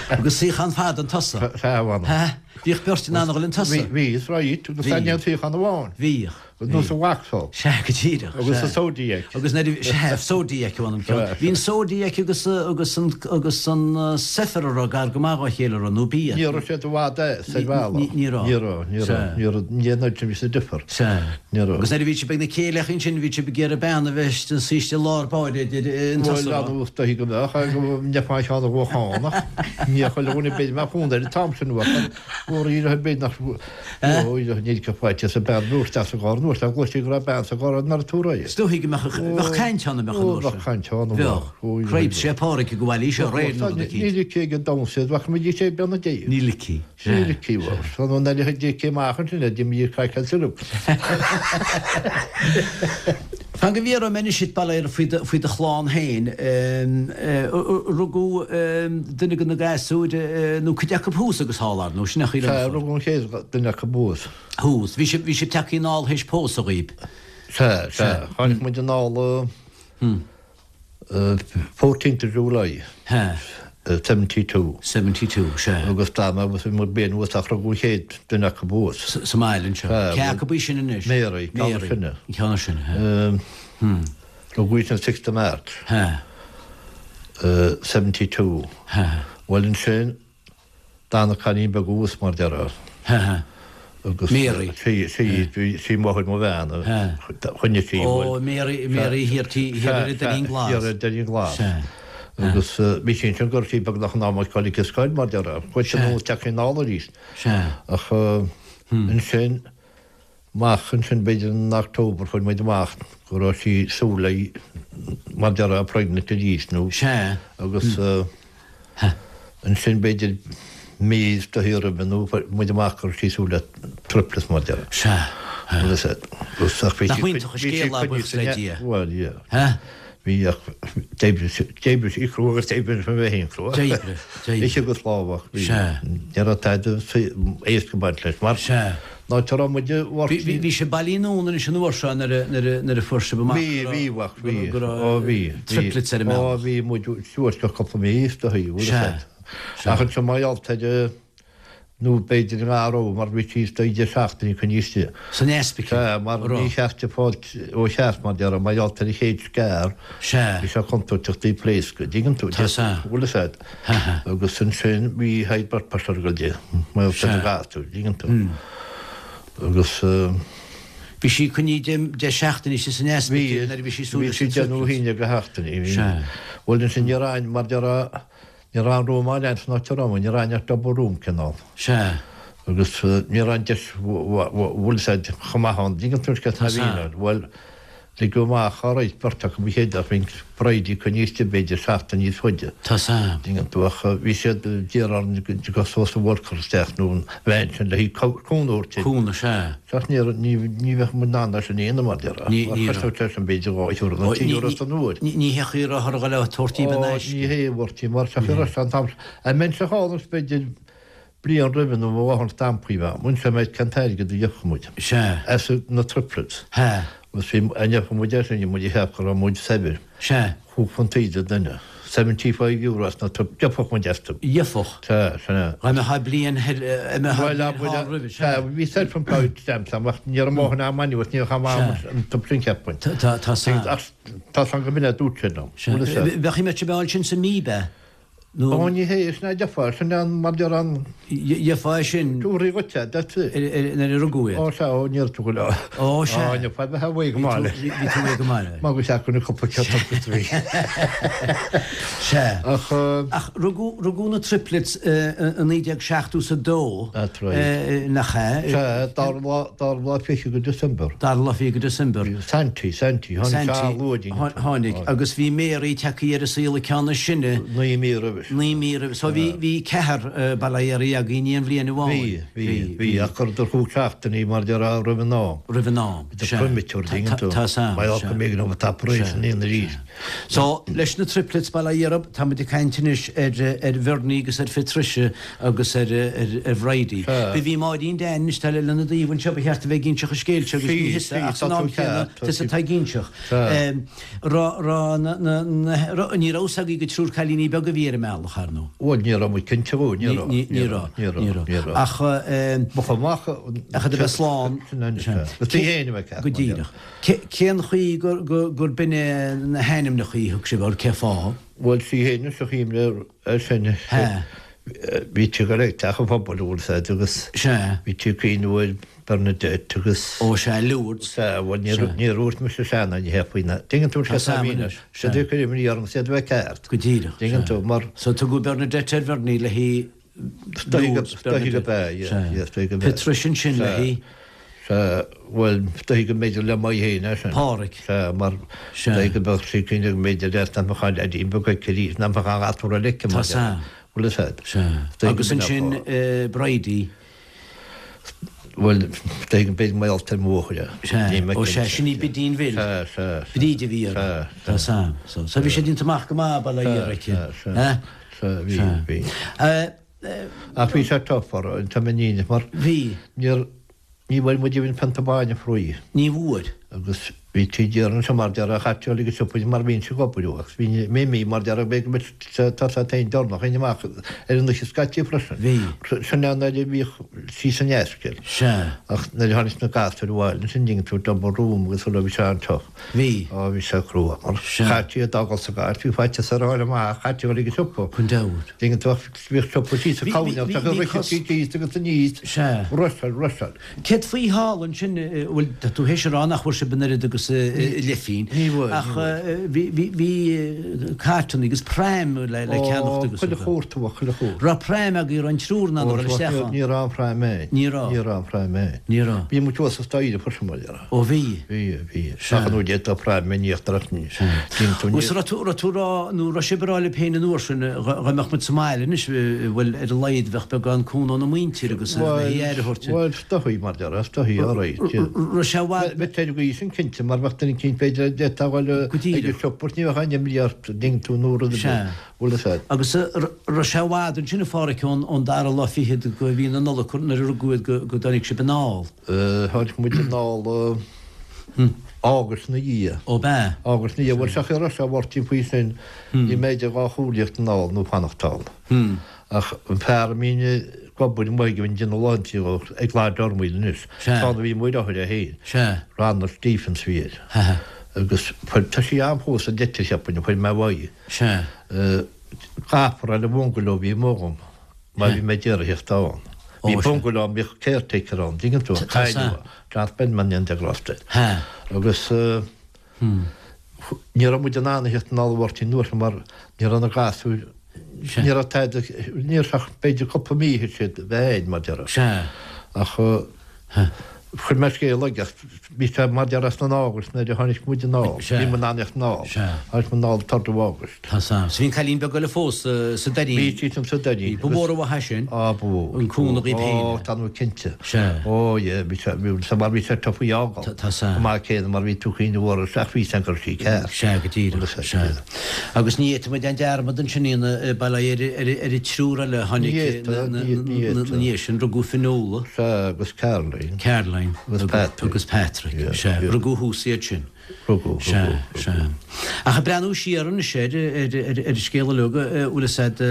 [SPEAKER 2] Agus suíochán fada an tosach.
[SPEAKER 3] Sea, a mh'anam.
[SPEAKER 2] Bhíodh beirt in ann a dhul an tosach.
[SPEAKER 3] Bhí, is right, agus
[SPEAKER 2] Bhí.
[SPEAKER 3] ní an suíochán amháin.
[SPEAKER 2] Bhíodh.
[SPEAKER 3] Nós an Vauxhall.
[SPEAKER 2] Sea, go díreach.
[SPEAKER 3] Agus an Zodiac.
[SPEAKER 2] Agus nuair a, sea, Zodiac a mh'anam ceann. Bhí an Zodiac agus, agus an, agus an Zephyr a raibh gar go maith dhá chéile a raibh, nó b'í.
[SPEAKER 3] Ní raibh siad i bhfad as ar bhealach.
[SPEAKER 2] Ní, ní raibh.
[SPEAKER 3] Ní raibh, ní raibh, ní raibh, ní raibh, ní raibh difear.
[SPEAKER 2] Sea.
[SPEAKER 3] Ní raibh.
[SPEAKER 2] Agus nuair a bhí sibh ag na céilíochaí ansin, bhí sibh ag iarraidh bean a bheith ina suí istigh i lár báire idir an
[SPEAKER 3] Bhuel,
[SPEAKER 2] tusa a raibh.
[SPEAKER 3] anuas dóichí go mbeadh, ach go mbeifeá an cheann a bhuachan ach ní chuile dhuine b'fhéidir mbeadh fonn air an t-am sin uait ach mhór ar bith nach níl go faighte sa bean dúirt as an gcarr nuair a gcloisfí go raibh bean sa gcarr nuair a tabharfaí.
[SPEAKER 2] Is dóichí go mbeadh bheadh caint ann a mbeadh an uair sin.
[SPEAKER 3] Bheadh caint ann,
[SPEAKER 2] bheadh. Cripes, sé Pádraig go bhfaillí seo réir nó rud eicínt.
[SPEAKER 3] Níl aici ag an domhan bheadh muid ag sé bean na dé.
[SPEAKER 2] Níl aici.
[SPEAKER 3] Níl aici, bhuel, san an eile a d'fhéadfaí amach ansin, a d'imigh ag craiceann syrup.
[SPEAKER 2] Fan go bhfiafróidh mé anois díot, bail ó Dhia ort, faoi do chlann féin. Rugadh duine de na gasúir, nó cuid acu thuas agus thall, ar ndóigh, sin é an chaoi
[SPEAKER 3] Sea, rugadh an chéad duine acu thuas.
[SPEAKER 2] Thuas. Bhí sibh, bhí sibh tagtha anall théis pósadh dhaoib?
[SPEAKER 3] Sea, sea. Tháinig muid anall 14th of July.
[SPEAKER 2] Sea.
[SPEAKER 3] 72.
[SPEAKER 2] 72, sea.
[SPEAKER 3] Agus d'fhan mé abhus, bhí muid bliain abhus ach rugadh an chéad duine acu abhus.
[SPEAKER 2] Sa mbaile anseo.
[SPEAKER 3] Sea.
[SPEAKER 2] Cé acu í sin anois?
[SPEAKER 3] Mary, ceann is sine.
[SPEAKER 2] An ceann is sine, sea.
[SPEAKER 3] Rugadh í sin 6th of March.
[SPEAKER 2] Sea.
[SPEAKER 3] 72.
[SPEAKER 2] Sea.
[SPEAKER 3] Bhuel ansin, D'fhan an cailín beag abhus mar déarfá. Agus
[SPEAKER 2] Mary.
[SPEAKER 3] Sí, sí, sí máthair mo bhean a choinnigh sí.
[SPEAKER 2] Ó, Mary, Mary thiar tí, thiar ar an Doirín Glas.
[SPEAKER 3] Thiar ar an Doirín Glas.
[SPEAKER 2] Sea.
[SPEAKER 3] Agus bhí sí ansin go raibh sí beagnach in am ag dul ag an scoil mar déarfá. Chuaigh sí anuas teach anall arís.
[SPEAKER 2] Sea.
[SPEAKER 3] Ach ansin, amach ansin b'fhéidir in October fuair muid amach go raibh sí súil léi mar déarfá pregnant arís nó
[SPEAKER 2] Sea.
[SPEAKER 3] agus ansin b'fhéidir mí is dóichí roimhe nó fuair muid amach go raibh sí súil le triplets mar déarfá.
[SPEAKER 2] Sea.
[SPEAKER 3] Agus agus ach bhí
[SPEAKER 2] Nach
[SPEAKER 3] sí
[SPEAKER 2] iontach an scéal é, buíochas le Dia.
[SPEAKER 3] Bhuel yeah.
[SPEAKER 2] Huh?
[SPEAKER 3] Bhí ach d'oibrigh sí d'oibrigh sí crua agus d'oibrigh mé féin crua.
[SPEAKER 2] D'oibrigh, d'oibrigh.
[SPEAKER 3] Ise agus lámhach bhí
[SPEAKER 2] Sea.
[SPEAKER 3] ní raibh tada éasca baint leis mar
[SPEAKER 2] Sea.
[SPEAKER 3] An áit a raibh muid i
[SPEAKER 2] bhFort. Bhí sibh bailithe anonn anois an uair seo nuair a fuair sibh amach
[SPEAKER 3] go raibh, bhí, go raibh bhí,
[SPEAKER 2] triplets ar an
[SPEAKER 3] mbealach. Ó bhí muid suas go cúpla mí is dóigh, bhfuil a fhios agat. Ach ansin mar gheall ar, nó b'fhéidir i ngar mar bhí sí istigh 10 seachtainí coinnithe istigh.
[SPEAKER 2] San ospidéal?
[SPEAKER 3] Sea, mar ní cheart di fáil ó cheart mar déarfá, mar gheall ar an chéad scair,
[SPEAKER 2] Sea.
[SPEAKER 3] bhí sé contúirteach di pléascadh, dtuigeann tú?
[SPEAKER 2] Tá sea.
[SPEAKER 3] Bhfuil a fhios agat. Agus ansin bhí high blood pressure ag dul di, mar gheall ar an ghasúr, dtuigeann tú? Agus.
[SPEAKER 2] Bhí sí coinnithe 10 seachtainí istigh san ospidéal nuair a bhí sí
[SPEAKER 3] suas leis an triplets. Bhí sí 10 nó 11 de sheachtainí. Sea. Bhuel ansin ní raibh aon, mar déarfá, Ní raibh aon room áil ann san áit a raibh muid, ní raibh aon ach double room cineál.
[SPEAKER 2] Sea.
[SPEAKER 3] Agus ní raibh an deis bhfuil a fhios agat chomh maith ann, dtuigeann tú cén
[SPEAKER 2] Tá
[SPEAKER 3] a bhí ann. Bhuel, ligeadh amach all right beirt acu ba chéad ach bhí Bridie coinnithe istigh b'fhéidir seachtain níos faide.
[SPEAKER 2] Tá 's a'm.
[SPEAKER 3] Dtuigeann tú ach bhí siad d'iarraidh orainn go dtiocfadh social worker isteach nó an bhean sin le haghaidh cúnamh a thabhairt di.
[SPEAKER 2] Cúnamh, sea.
[SPEAKER 3] Ach ní ní bheadh muid in ann é sin a dhéanamh mar déarfá.
[SPEAKER 2] Ní ní raibh.
[SPEAKER 3] Chosnódh sé sin b'fhéidir €2 nó €3 san uair.
[SPEAKER 2] Ní ní hé chaoi a raibh ar dhul a tabhairt díobh in aisce.
[SPEAKER 3] Ní hé a bhurtaí mar sa chaoi raibh sé an t-am sin. An mbeinnse thall is b'fhéidir bliain roimhe nó mo mháthair stampaí bheadh. Bhain sé mé cén t-airgead a gheobhadh muid.
[SPEAKER 2] Sea.
[SPEAKER 3] As na triplets.
[SPEAKER 2] Sea.
[SPEAKER 3] Agus bhí a ngeobhadh muid air sin bhí muid ag ceapadh go raibh muid saibhir.
[SPEAKER 2] Sea.
[SPEAKER 3] Chúig phunt an duine. €75 as na triplets. Gheobhadh muid astu.
[SPEAKER 2] Gheobhadh.
[SPEAKER 3] Sea, sin é.
[SPEAKER 2] Dá mbeifeá bliain thoir, dá mbeifeá bliain thall roimhe,
[SPEAKER 3] sea. Sea, bhí self-employed stamps agam ach ní raibh mo dhóthain am anuas, ní raibh am
[SPEAKER 2] Sea.
[SPEAKER 3] an t-am sin cheapfainn.
[SPEAKER 2] Tá, tá, tá 's a'm.
[SPEAKER 3] Ach tá 's a'm go mb'in é a dúirt sé liom.
[SPEAKER 2] Sea.
[SPEAKER 3] Bhfuil a fhios agat.
[SPEAKER 2] Bheadh mé sa mbeáil sin sa mí, b'ea?
[SPEAKER 3] Nó. Ó, ní hé, sin é gheofá, sin é an, mar deir an.
[SPEAKER 2] Gheofá é sin.
[SPEAKER 3] Tabharfaí dhuit é, that's it.
[SPEAKER 2] Nuair a rugadh iad.
[SPEAKER 3] Ó, sea, ó, níor tugadh leo.
[SPEAKER 2] Ó, sea.
[SPEAKER 3] Ó, ní fada a bheith go maith leis.
[SPEAKER 2] Bhí tú réidh go maith leis.
[SPEAKER 3] Mar go seacann na cúpla ceann agus bhí.
[SPEAKER 2] Sea.
[SPEAKER 3] Ach.
[SPEAKER 2] Ach rugadh, rugadh na triplets i 1972.
[SPEAKER 3] That's right.
[SPEAKER 2] Nach ea?
[SPEAKER 3] Sea, dara lá, dara lá fiche de December.
[SPEAKER 2] Dara lá fiche de December.
[SPEAKER 3] Santy, Santy, tháinig sé an-luath dínn.
[SPEAKER 2] Tháinig, agus bhí Mary tagtha ar an saol an ceann is sine.
[SPEAKER 3] Naoi mí roimhe.
[SPEAKER 2] Naoi mí roimhe. So bhí, bhí ceathrar, bail ó Dhia oraibh agaibh in aon bhliain
[SPEAKER 3] amháin. Bhí, bhí, bhí, ach chuireadar chúig seachtainí mar déarfá roimh an am.
[SPEAKER 2] Roimh an am,
[SPEAKER 3] sea. Premature, dtuigeann tú.
[SPEAKER 2] Tá 's a'm,
[SPEAKER 3] Mar gheall go mb'éigean dóibh an operation a dhéanamh arís.
[SPEAKER 2] So, leis na triplets, bail ó Dhia oraibh, tá muid ag caint anois ar, ar Bhernie agus ar Phatricia agus ar, ar, ar Bhridie.
[SPEAKER 3] Sea.
[SPEAKER 2] Bhí Máirín Dan anois, tá lena dtaobh anseo, ba cheart a bheith ag inseacht an scéil seo agus ní thusa, ach san am céanna, tusa atá ag inseacht.
[SPEAKER 3] Sea.
[SPEAKER 2] Raibh, raibh na, na, na, raibh, ní raibh 'fhios agaibh gur triúr cailíní beaga a bhí ar an mbealach, ar ndóigh.
[SPEAKER 3] Bhuel, ní raibh muid cinnte dhó, ní raibh.
[SPEAKER 2] Ní, ní raibh,
[SPEAKER 3] ní raibh,
[SPEAKER 2] ní raibh.
[SPEAKER 3] ní raibh.
[SPEAKER 2] Ach, eh,
[SPEAKER 3] Ba chomh maith,
[SPEAKER 2] ach iad a bheith slán.
[SPEAKER 3] Sin an, sea. Is tú fhéin a bheith ceart,
[SPEAKER 2] Go
[SPEAKER 3] mar dhea.
[SPEAKER 2] díreach. Cé, cén chaoi gur, gur, gur b'in é na hainmneacha a thug sibh orthu, cé fáth?
[SPEAKER 3] Bhuel, sí fhéin is a chuimhne air sin.
[SPEAKER 2] Sea.
[SPEAKER 3] Bhí tú ag dul ag teach an phobail, an bhfuil 'fhios a'd, agus
[SPEAKER 2] Sea.
[SPEAKER 3] bhí tú ag cuimhneamh ar Bernadette agus.
[SPEAKER 2] Ó sea, Lourdes.
[SPEAKER 3] Sea, bhuel níor,
[SPEAKER 2] Sea.
[SPEAKER 3] níor dhúirt mise sea ná ní hea faoi na, dtuigeann tú
[SPEAKER 2] Tá 's a'm anois,
[SPEAKER 3] sea.
[SPEAKER 2] sea.
[SPEAKER 3] Siad ag cur imní orm, siad a bheith ceart.
[SPEAKER 2] Go díreach,
[SPEAKER 3] Dtuigeann
[SPEAKER 2] sea.
[SPEAKER 3] tú, mar.
[SPEAKER 2] So tugadh Bernadette ar Bhernie le hí Lourdes,
[SPEAKER 3] Is dóiche go
[SPEAKER 2] Bernadette.
[SPEAKER 3] b'ea, yeah,
[SPEAKER 2] Sea.
[SPEAKER 3] yeah, is dóiche go b'ea.
[SPEAKER 2] Patricia ansin le
[SPEAKER 3] Sea.
[SPEAKER 2] hí.
[SPEAKER 3] Sea, bhuel, is dóiche go mb'fhéidir le Maigh féin é sin.
[SPEAKER 2] Pádraic.
[SPEAKER 3] Sea, mar
[SPEAKER 2] Sea.
[SPEAKER 3] is dóiche go mbeadh sí cinnte go mb'fhéidir leat nach mbeadh an leaidín beag aici arís, nach mbeadh an gasúr eile aici,
[SPEAKER 2] Tá
[SPEAKER 3] mar
[SPEAKER 2] 's a'm.
[SPEAKER 3] Bhfuil 'fhios a'd.
[SPEAKER 2] Sea.
[SPEAKER 3] Is dóiche go
[SPEAKER 2] Agus
[SPEAKER 3] mb'in é
[SPEAKER 2] ansin
[SPEAKER 3] an fáth.
[SPEAKER 2] Bridie.
[SPEAKER 3] Bhuel, is dóiche go mb'fhéidir mar gheall ar mo mháthair é.
[SPEAKER 2] Sea.
[SPEAKER 3] Níl mé
[SPEAKER 2] Ó sea,
[SPEAKER 3] cinnte.
[SPEAKER 2] sin í Bidín Bhill.
[SPEAKER 3] Sea, sea, sea.
[SPEAKER 2] Bríd a bhí uirthi.
[SPEAKER 3] Sea, sea.
[SPEAKER 2] Tá 's a'm. So, so bhí sé déanta amach go maith, bail ó Dhia
[SPEAKER 3] Sea,
[SPEAKER 2] uirthi.
[SPEAKER 3] sea, sea.
[SPEAKER 2] Eh?
[SPEAKER 3] Sea, bhí,
[SPEAKER 2] Sea.
[SPEAKER 3] bhí.
[SPEAKER 2] Eh,
[SPEAKER 3] Ach bhí sé tough orthu, an t-am in mar
[SPEAKER 2] Bhí.
[SPEAKER 3] níor, ní bhfuair muid even pionta bainne fraoigh.
[SPEAKER 2] Ní bhfuair.
[SPEAKER 3] Agus bhí tí deireanach seo mar déarfá chaití uilig ag siopa mar bhínnse ag obair agus bhí mé mí mar déarfá b'fhéidir go mbeadh tá sé féin deireanach féin amach ar an oíche scaití freisin.
[SPEAKER 2] Bhí.
[SPEAKER 3] Sin é an uair a bhíodh sí san ospidéal.
[SPEAKER 2] Sea.
[SPEAKER 3] Ach nuair a tháinig na gasúir abhaile ansin dtuigeann tú double room agus sula bhí sé an-tough.
[SPEAKER 2] Bhí.
[SPEAKER 3] Á bhí sé crua mar
[SPEAKER 2] Sea.
[SPEAKER 3] chaití iad a fhágáil sa gcarr bhí faitíos orthu a fháil amach chaití uilig ag siopa.
[SPEAKER 2] Gan dabht.
[SPEAKER 3] Dtuigeann tú ach bhíodh siopa síos sa
[SPEAKER 2] Bhí,
[SPEAKER 3] cabhain
[SPEAKER 2] bhí,
[SPEAKER 3] agus
[SPEAKER 2] bhí
[SPEAKER 3] rith
[SPEAKER 2] cos.
[SPEAKER 3] siad síos agus aníos.
[SPEAKER 2] Sea.
[SPEAKER 3] Rusháil, rusháil.
[SPEAKER 2] Céard faoi thall ansin, bhuel, tá tú théis a rá nach bhfuair sibh an oiread agus leithphingin.
[SPEAKER 3] Ní bhfuair, ní
[SPEAKER 2] Ach
[SPEAKER 3] bhfuair.
[SPEAKER 2] bhí, bhí, bhí cartanna agus pram le, le
[SPEAKER 3] Ó,
[SPEAKER 2] ceannacht agus
[SPEAKER 3] chuile shórt a bheadh, chuile shórt.
[SPEAKER 2] Raibh pram agaibh, raibh an triúr in ann a dhul isteach ann?
[SPEAKER 3] Ní raibh aon pram ann.
[SPEAKER 2] Ní raibh.
[SPEAKER 3] Ní raibh aon pram ann.
[SPEAKER 2] Ní raibh.
[SPEAKER 3] Bhí muid thuas sa staighre freisin, mar dhea.
[SPEAKER 2] Ó bhí.
[SPEAKER 3] Bhí, bhí.
[SPEAKER 2] Sea.
[SPEAKER 3] Ach an uair d'fhéadfá pram in íochtar ach ní.
[SPEAKER 2] Sea.
[SPEAKER 3] Dtuigeann tú, ní.
[SPEAKER 2] Agus raibh tú, raibh tú rá, nó raibh sibh ag rá libh féin an uair sin, dhá mbeadh muid sa mbaile anois, bhuel, ar a laghad bheadh beagán cúnamh óna muintir agus le
[SPEAKER 3] Bhuel,
[SPEAKER 2] haghaidh aire a thabhairt.
[SPEAKER 3] bhuel, is dóigh, mar déarfá, is dóigh, all right, yeah.
[SPEAKER 2] Raibh sé i bhfad.
[SPEAKER 3] Bheadh ar an gcaoi sin cinnte mar. mar bheadh duine eicínt b'fhéidir a d'fhéadfá a dhul
[SPEAKER 2] Go
[SPEAKER 3] ag
[SPEAKER 2] díreach.
[SPEAKER 3] an siopa ní bheadh aon imní ort an dtuigeann tú nó rud ar bith.
[SPEAKER 2] Sea.
[SPEAKER 3] Bhfuil fhios a'd.
[SPEAKER 2] Agus raibh sé i bhfad ansin a Phádhraic ón dara lá fichead de mhí na Nollag nuair a rugadh iad go dtáinig sibh anall?
[SPEAKER 3] Tháinig muid anall Águst ina dhiaidh.
[SPEAKER 2] Ó b'ea?
[SPEAKER 3] Águst ina dhiaidh. Bhuel seach ar sé a Mháirtín faoi sin bhí mé idir dhá chomhairle thíocht anall nó fanacht ann. Ach an fear a mbínn ag obair amuigh aige bhínn ag déanamh laethanta dhó ag Lodge Ormaoil anois.
[SPEAKER 2] Sea.
[SPEAKER 3] Tá a bhí amuigh ar othair é féin.
[SPEAKER 2] Sea.
[SPEAKER 3] Ronald Stephens a bhí air.
[SPEAKER 2] Ha.
[SPEAKER 3] Agus fuair, tá sí ann fós an leitir cheapfainn, a fuair mé uaidh.
[SPEAKER 2] Sea.
[SPEAKER 3] Caithfear le bungalow a bhí amuigh agam mar bhí mé ag iarraidh theacht ann. Bhí bungalow ann, bhíodh caretaker ann, dtuigeann tú, cailleadh é, John Spelman in de Gloucester. Agus ní raibh muid in ann a theacht anall a Mháirtín an uair sin mar ní raibh na gasúir, ní raibh tada, ní raibh ach b'fhéidir cúpla mí a siad a bheith ann mar déarfá. Ach Chuir mé scéal aige, bhí sé mar déarfá san August nuair a tháinig muid anall, bhí muid in ann theacht anall, tháinig muid anall third of August.
[SPEAKER 2] Tá san. So bhí an cailín beag eile fós sa Doirín.
[SPEAKER 3] Bhí sí san sa Doirín.
[SPEAKER 2] Bhí. Ba mhór an mhaith é sin.
[SPEAKER 3] Á, ba mhór.
[SPEAKER 2] An cúnamh dhaoib féin.
[SPEAKER 3] Ó, tá nó cinnte.
[SPEAKER 2] Sea.
[SPEAKER 3] Ó, yeah, bhí sé, bhí sé mar bhí sé tough í fhágáil.
[SPEAKER 2] Tá san.
[SPEAKER 3] Chomh maith céanna mar bhí tú cuimhneamh orthu ach bhí san go raibh sí ceart.
[SPEAKER 2] Sea, go díreach. Sea. Agus ní fhéadfaidh muid déanamh dearmad ansin a bail ó Dhia ar ar an triúr eile a tháinig ina dhiaidh sin, rugadh Fionnuala.
[SPEAKER 3] Sea, agus Caroline.
[SPEAKER 2] Caroline.
[SPEAKER 3] Agus Patrick.
[SPEAKER 2] Agus Patrick, sea. Rugadh thuas iad sin.
[SPEAKER 3] Rugadh,
[SPEAKER 2] Sea, sea. Ach ag breathnú siar anois ar ar an scéal uilig, bhfuil fhios a'd,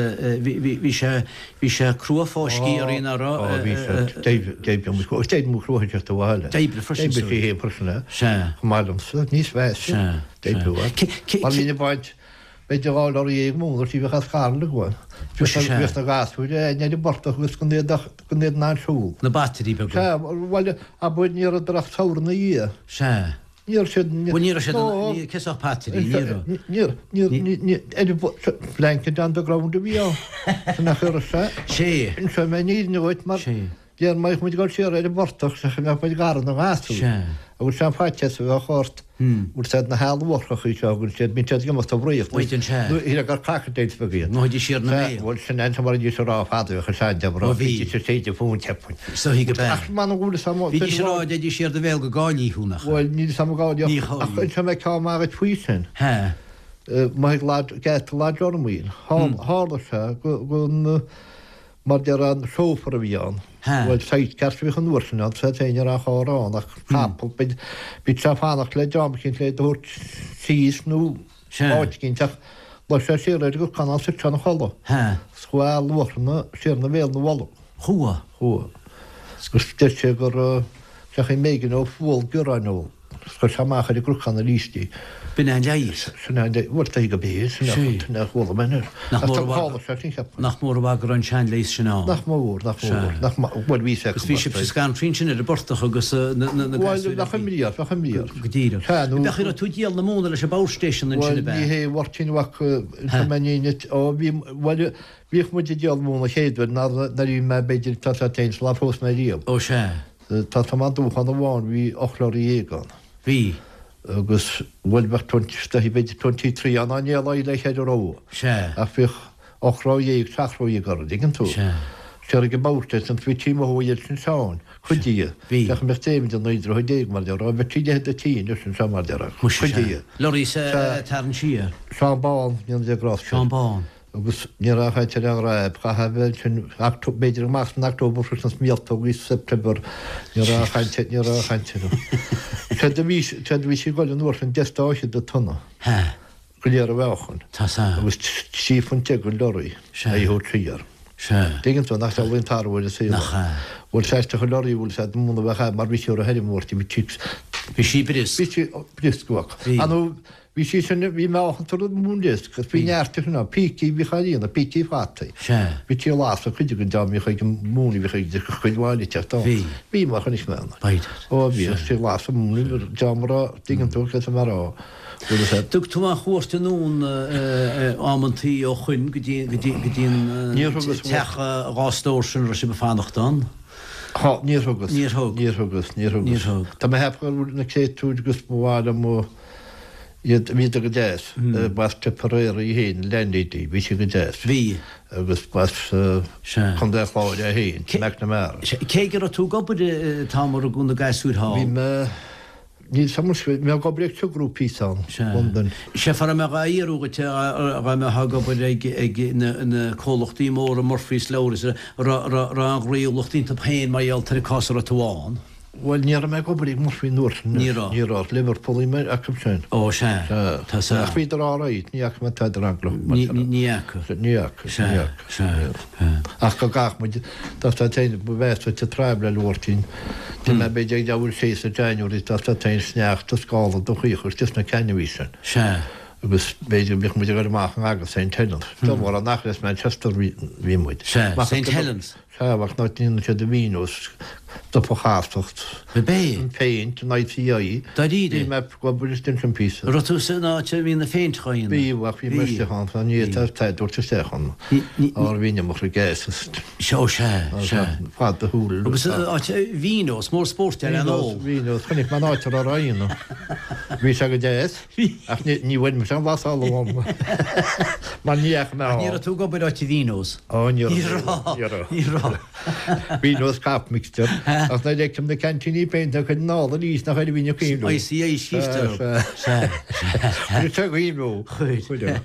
[SPEAKER 2] bhí sé, bhí sé crua fáiscthe orainn, nach raibh?
[SPEAKER 3] Ó, bhí sé, d'oibrigh mo chrua teacht abhaile.
[SPEAKER 2] D'oibrigh freisin,
[SPEAKER 3] D'oibrigh sí féin freisin, é.
[SPEAKER 2] Sea.
[SPEAKER 3] Chomh maith liomsa, níos measa.
[SPEAKER 2] Sea.
[SPEAKER 3] Mar bhínn ag baint, b'fhéidir 2 lorry dhéag móna tí bheadh as Carna againn. Bhíodh na gasúir againn ar an bportach agus gan iad ach gan iad in ann siúl.
[SPEAKER 2] Na batairí beaga.
[SPEAKER 3] Sea, bhuel, abair ní rabhadar ach samhradh ina dhiaidh.
[SPEAKER 2] Sea.
[SPEAKER 3] Ní raibh siad.
[SPEAKER 2] Bhuel, ní raibh siad, ní, cé sách batairí, ní raibh.
[SPEAKER 3] Ní raibh, ní, ní, ní, ar an blanket on the ground a bhí ann. Sin nach raibh sé.
[SPEAKER 2] Sea.
[SPEAKER 3] Inseoidh mé an fhírinne dhuit mar.
[SPEAKER 2] Sea.
[SPEAKER 3] Déarfainn má bheadh muid ag dul siar ar an bportach sea go mbeadh muid gar do na gasúir.
[SPEAKER 2] Sea.
[SPEAKER 3] Agus sé an faitíos a bheadh ort, bhfuil siad na healbharthachaí seo agus siad, bíonn siad ag imeacht i bhfraoch.
[SPEAKER 2] Bíonn, sea.
[SPEAKER 3] Nó shílfeá gur crocodiles beaga iad.
[SPEAKER 2] Ngabhaidís siar ina
[SPEAKER 3] Sea,
[SPEAKER 2] mbéal.
[SPEAKER 3] bhuel sin é mar a bhídís ag rá fadó, bheadh a sean deamh
[SPEAKER 2] Ó bhí.
[SPEAKER 3] Bhídís ag séideadh fúinn, cheapfainn.
[SPEAKER 2] Is dóichí go b'ea.
[SPEAKER 3] Ach m'anam go bhfuil fhios a'm.
[SPEAKER 2] Bhídís ag rá, dtéidís siar do bhéal go gcaillí thú, nach ea?
[SPEAKER 3] Bhuel, níl fhios a'm an gcaillí
[SPEAKER 2] Ní
[SPEAKER 3] ach
[SPEAKER 2] chaillí.
[SPEAKER 3] inseoidh mé ceann maith dhuit faoi sin.
[SPEAKER 2] Sea.
[SPEAKER 3] Maith ag lad, geata Lodge Ormaoil. Tharla sé go, go, Mar déarfá an chauffeur a bhí ann. Bhuel, sidecar a bhíodh an uair sin ann, sea féin ní raibh aon charr ann ach capall. Bhí sé ag fanacht le dream eicínt le é do thabhairt síos nó áit eicínt ach luigh sé siar ar an gcnocán ann suite ina chodladh. Is chuaigh eala luachranna siar ina bhéal ina bholg.
[SPEAKER 2] Chuaigh.
[SPEAKER 3] Chuaigh. Agus deir sé gur seachain mb'éigean dó fual bioráin a ól. Chuir sé amach ar an gcnocán arís í.
[SPEAKER 2] B'in é an leigheas.
[SPEAKER 3] Sin é an leigheas. Bhuel, tá go b'é, sin é sin é a chuala mé anois.
[SPEAKER 2] Nach
[SPEAKER 3] Ach
[SPEAKER 2] mór
[SPEAKER 3] tá
[SPEAKER 2] a bhfad,
[SPEAKER 3] tharla sé sin, cheapfainn.
[SPEAKER 2] nach mór an mhaith go raibh an seanleigheas sin ann.
[SPEAKER 3] Nach mór, nach mór, nach mór, bhuel bhí sé
[SPEAKER 2] Agus bhí sibhse scanraithe ansin ar an bportach agus na, na, na
[SPEAKER 3] Bhuel,
[SPEAKER 2] gasúir
[SPEAKER 3] bheadh imní ort, bheadh imní ort.
[SPEAKER 2] Go díreach.
[SPEAKER 3] Sea, nó.
[SPEAKER 2] Bheadh, raibh tú ag díol na móna leis an bpower station ansin
[SPEAKER 3] Bhuel,
[SPEAKER 2] ab ea?
[SPEAKER 3] ní hé a Mháirtín mhac, tá mé in éineacht, ó bhí, bhuel, bhíodh muid ag díol móna chéad uair nuair a bhí mé b'fhéidir, tá sé féin, sular phós mé riamh.
[SPEAKER 2] Ó sea.
[SPEAKER 3] Tá tá maith dúchán amháin bhí 18 lorry ann.
[SPEAKER 2] Bhí.
[SPEAKER 3] Agus bhuel bheadh twenty b'fhéidir 23 ann á ndéileáil le cheithre ró.
[SPEAKER 2] Sea.
[SPEAKER 3] Ach bhíodh 8 ró dhéag, 7 ró dhéag orthu, dtuigeann tú.
[SPEAKER 2] Sea.
[SPEAKER 3] Siar ag an bpower station bhí tí mo shóigh iad sin Seán, cuid díobh.
[SPEAKER 2] Bhí.
[SPEAKER 3] Bheadh mbeadh David i 19 droichead mar déarfá, bheadh tí leithéid de tí anois anseo mar déarfá.
[SPEAKER 2] Muise
[SPEAKER 3] Cuid
[SPEAKER 2] sea.
[SPEAKER 3] díobh.
[SPEAKER 2] Lorry sa
[SPEAKER 3] Sea.
[SPEAKER 2] tarraingt siar.
[SPEAKER 3] Seán Bán, ní an Grásta.
[SPEAKER 2] Seán Bán.
[SPEAKER 3] Agus ní raibh ach áit ar an ghráib, chaithfeá a bheith ansin, b'fhéidir amach san October freisin sna míoltógaí sa September, ní raibh ach caint, ní raibh ach caint orthu. Séard a bhí, séard a bhí sí ag goil an uair sin, deich stáithe de tonna.
[SPEAKER 2] Hea.
[SPEAKER 3] Go léir a mheáchan.
[SPEAKER 2] Tá sa.
[SPEAKER 3] Agus 13 phunt an lorry.
[SPEAKER 2] Sea.
[SPEAKER 3] A thabhairt siar.
[SPEAKER 2] Sea.
[SPEAKER 3] Tuigeann tú, nach dealraíonn tarbh ar an saol.
[SPEAKER 2] Nach ea.
[SPEAKER 3] Bhuel, sea, isteach an lorry, bhuel, sea, muna bheadh ea, mar bhí sí ar a theirim uair, bhí sí.
[SPEAKER 2] Bhí sí briosc.
[SPEAKER 3] Bhí sí briosc, bheadh.
[SPEAKER 2] Bhí.
[SPEAKER 3] An Bhí sí sin, bhí meáchan tar an mhóin briosc agus bhí neart de sin ann, pící a bhíodh á líonadh, pící fataí.
[SPEAKER 2] Sea.
[SPEAKER 3] Bhí tí lasadh cuid den dá mbíodh ag an móin a bhíodh ag cuid mhaith eile teacht ann.
[SPEAKER 2] Bhí.
[SPEAKER 3] Bhí mar chonaic mé ann.
[SPEAKER 2] B'fhéidir.
[SPEAKER 3] Ó bhí, tí lasadh móin, dá mba raibh, dtuigeann tú cad é mar a bhfuil fhios agat.
[SPEAKER 2] Dtug tú aon chuairt anonn amantaí ó shoin go dtí go dtí go dtí an
[SPEAKER 3] Níor thugas
[SPEAKER 2] teach dhá stór sin a raibh sibh ag fanacht ann?
[SPEAKER 3] Thá, níor thugas.
[SPEAKER 2] Níor thug.
[SPEAKER 3] Níor thugas, níor thugas.
[SPEAKER 2] Níor thug.
[SPEAKER 3] Tá mé ag ceapadh go bhfuil na créatúir agus ba mhaith liom iad, bhíodar go deas. B'as Tipperary í féin, landlady, bhí sí go deas.
[SPEAKER 2] Bhí.
[SPEAKER 3] Agus b'as
[SPEAKER 2] Sea.
[SPEAKER 3] Contae an Chláir é féin, McNamara.
[SPEAKER 2] Sea. Cé go raibh tú ag obair an t-am a rugadh na gasúir thall?
[SPEAKER 3] Bhí mé. Níl 's a'm, bhí mé ag obair ag Sugrue píosa ann, Londain.
[SPEAKER 2] Sea, fear a mbeadh á fhiarú dhuit dá mbeifeá ag obair ag na comhlachtaí móra Murphy's, Lowry's, raibh an ghnaíúlacht iontu féin mar gheall ar an cás a raibh tú ann.
[SPEAKER 3] Bhuel, ní raibh mé ag obair ag Murphy an uair sin.
[SPEAKER 2] Ní raibh.
[SPEAKER 3] Ní raibh. Liverpool bhí mé acu sin.
[SPEAKER 2] Ó, sea.
[SPEAKER 3] Sea.
[SPEAKER 2] Tá sea.
[SPEAKER 3] Ach bhíodar all right, ní fhaca mé tada eaglach.
[SPEAKER 2] Ní fhaca.
[SPEAKER 3] Ní fhaca.
[SPEAKER 2] Sea.
[SPEAKER 3] Ní fhaca.
[SPEAKER 2] Sea. Sea.
[SPEAKER 3] Ach go gcaithfeadh muid, dá stad féin, ba mheasa duit an traibhléil a Mháirtín. D'imigh mé b'fhéidir ag leathuair tar éis sa January, dá stad féin sneachta, scála do chaoch istigh sna ceannaí sin.
[SPEAKER 2] Sea.
[SPEAKER 3] Agus b'fhéidir go mbíodh muid ag dul amach in aga Saint Helens. Dá mhór an achar as Manchester bhí muid.
[SPEAKER 2] Sea. Saint Helens.
[SPEAKER 3] Sea, ach ná déanann siad a mhíniú, stop a chasacht,
[SPEAKER 2] Ab é?
[SPEAKER 3] an phéint, an ICI.
[SPEAKER 2] Dáiríre?
[SPEAKER 3] Bhí mé ag obair istigh ansin píosa.
[SPEAKER 2] Raibh tú san áit a mbíonn na phéint á dhéanamh?
[SPEAKER 3] Bhí, ach bhí mé istigh ann, ní fhéadfá a dúirt isteach ann. Ár bhí an iomarca gas is.
[SPEAKER 2] Sea, ó sea, sea.
[SPEAKER 3] Fad do shúl.
[SPEAKER 2] Agus áit Vino's, mór spóirt ar an ól.
[SPEAKER 3] Vino's, chonaic mé an áit a raibh á dhéanamh. Bhí sé go deas. Ach ní bhain mise an bhlasáil uaim mar ní fhaca mé
[SPEAKER 2] Ach ní raibh tú ag obair áit Vino's?
[SPEAKER 3] Ó ní raibh.
[SPEAKER 2] Ní raibh. Ní raibh.
[SPEAKER 3] Vino's cop mixture. Ach nuair a fheicim na ceaintíní péinte a chuid anall arís nach ar a bhí na cuimhniú.
[SPEAKER 2] ICI scríobhtar.
[SPEAKER 3] Sea. Chuir sé cuimhniú.
[SPEAKER 2] Chuir.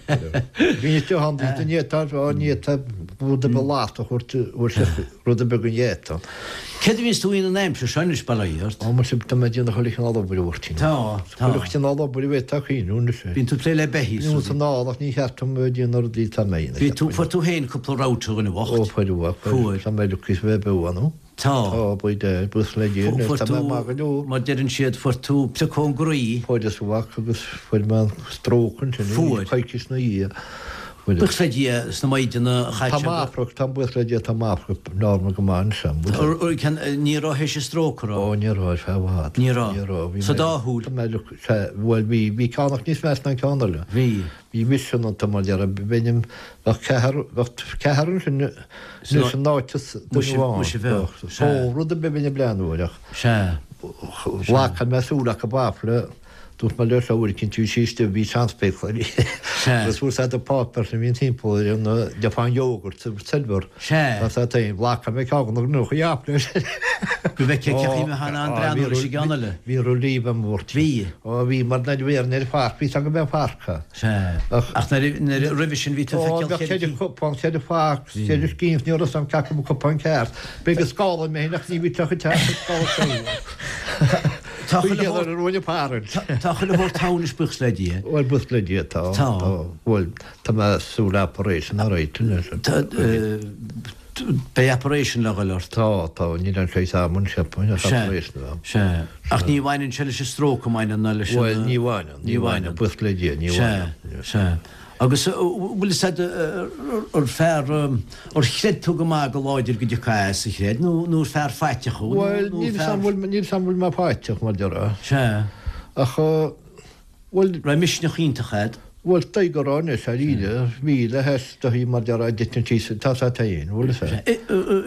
[SPEAKER 3] Bhí isteach ann ní fhéadfá ní fhéadfá rud ar bith lasta a thabhairt Rud ar bith den gheata.
[SPEAKER 2] Céard a bhíonns tú a dhéanamh an aimsir seo anois, bail ó Dhia ort?
[SPEAKER 3] Ó, muise, tá mé ag déanamh chuile chineál obair, a Mháirtín.
[SPEAKER 2] Tá, tá.
[SPEAKER 3] Chuile chineál obair a bhféadfá cuimhniú anois.
[SPEAKER 2] Bíonn tú ag plé le beithígh
[SPEAKER 3] is rudaí. Bíonn san ál ach ní cheart dom a bheith ag déanamh na rudaí atá mé a dhéanamh.
[SPEAKER 2] Bhí tú, fuair tú féin cúpla rabhta, a dhuine bhoicht.
[SPEAKER 3] Ó, fuair,
[SPEAKER 2] fuair.
[SPEAKER 3] Tá mé lucky a bheith beo, nó?
[SPEAKER 2] Tá.
[SPEAKER 3] Tá, by Dad, buíochas le Dia, anois
[SPEAKER 2] Fuair
[SPEAKER 3] tá
[SPEAKER 2] tú,
[SPEAKER 3] mé maith go leor.
[SPEAKER 2] mar deireann siad, fuair tú prioc ón gcroí.
[SPEAKER 3] Fuaireas mhac agus fuair mé an stróc ansin,
[SPEAKER 2] Fuair.
[SPEAKER 3] coicís ina dhiaidh.
[SPEAKER 2] Buíochas le Dia sna maighdeana chaite
[SPEAKER 3] Tá m'afrac, tá buíochas le Dia, tá m'afrac normal go maith anois. An
[SPEAKER 2] bhfuil sé? Ní raibh théis an stróc, an raibh?
[SPEAKER 3] Ó, ní raibh, ar feadh i bhfad.
[SPEAKER 2] Ní raibh?
[SPEAKER 3] Ní raibh. Bhí
[SPEAKER 2] Sa dá shúil?
[SPEAKER 3] Tá mé, sea, bhuel, bhí, bhí ceann ach níos measa ná an ceann eile.
[SPEAKER 2] Bhí.
[SPEAKER 3] Bhí mise iontu mar dhea, bheinn im, bheadh ceathrar, bheadh ceathrar ansin anois in áit duine amháin.
[SPEAKER 2] Muise bheadh,
[SPEAKER 3] sea. Ó, rud ar bith bheinn ag breathnú air ach.
[SPEAKER 2] Sea.
[SPEAKER 3] Ghlac mé súil acu b'fhéidir. Dúirt mé leo seo uair eicínt bhí sí istigh, bhí seanspéaclaí uirthi.
[SPEAKER 2] Sea.
[SPEAKER 3] Agus fuair said an páipéar sin a bhíonn timpeall ar an deafán yogurt agus silver.
[SPEAKER 2] Sea.
[SPEAKER 3] Tá said féin, ghlac mé ceann de na ghnóthaí leis.
[SPEAKER 2] Go bhfeicfeá cé chaoi a mbeifeá in ann breathnú leis an gceann eile.
[SPEAKER 3] Bhí relief a'm bhurt.
[SPEAKER 2] Bhí.
[SPEAKER 3] Ó bhí, mar nuair a bhí ar an pháirc, bhí 's agam go mbeadh páirc ann.
[SPEAKER 2] Sea. Ach nuair a, nuair a, roimhe sin bhí tú ag
[SPEAKER 3] Ó,
[SPEAKER 2] feiceáil
[SPEAKER 3] bheadh ceithre chupán, ceithre phac, ceithre scian, ní raibh 's a'm cé acu an cupán ceart. B'fhéidir go scálaigh mé féin ach ní bhí teach ag teacht ag scála
[SPEAKER 2] Tá chuile
[SPEAKER 3] shórt ar an bhfearann.
[SPEAKER 2] Tá chuile shórt ann anois buíochas le Dia.
[SPEAKER 3] Bhuel buíochas le Dia tá.
[SPEAKER 2] Tá.
[SPEAKER 3] Bhuel tá mé súil operation all right anois.
[SPEAKER 2] Tá beidh operation le dhul ort.
[SPEAKER 3] Tá, tá, níl aon saghas ama anois cheapfainn ach operation a bheith.
[SPEAKER 2] Sea. Ach ní bhaineann sé leis an stróc an mbaineann ná leis
[SPEAKER 3] an. Bhuel ní bhaineann, ní bhaineann, buíochas le Dia, ní
[SPEAKER 2] bhaineann. Sea, sea. Agus bhfuil fhios a'd ar fear, ar chreid tú go maith go láidir go dtiocfá as, ar chreid, nó nó ar fear faiteach thú, nó
[SPEAKER 3] Bhuel, níl 'fhios a'm bhfuil, níl 'fhios a'm bhfuil mé faiteach, mar déarfá.
[SPEAKER 2] Sea.
[SPEAKER 3] Ach, bhuel.
[SPEAKER 2] Raibh misneach iontach a'd?
[SPEAKER 3] Bhuel, dóigh go raibh anois, dáiríre, bhí le hais dóigh mar déarfá, d'eitil síos, tá 'fhios a'd féin, bhfuil 'fhios a'd.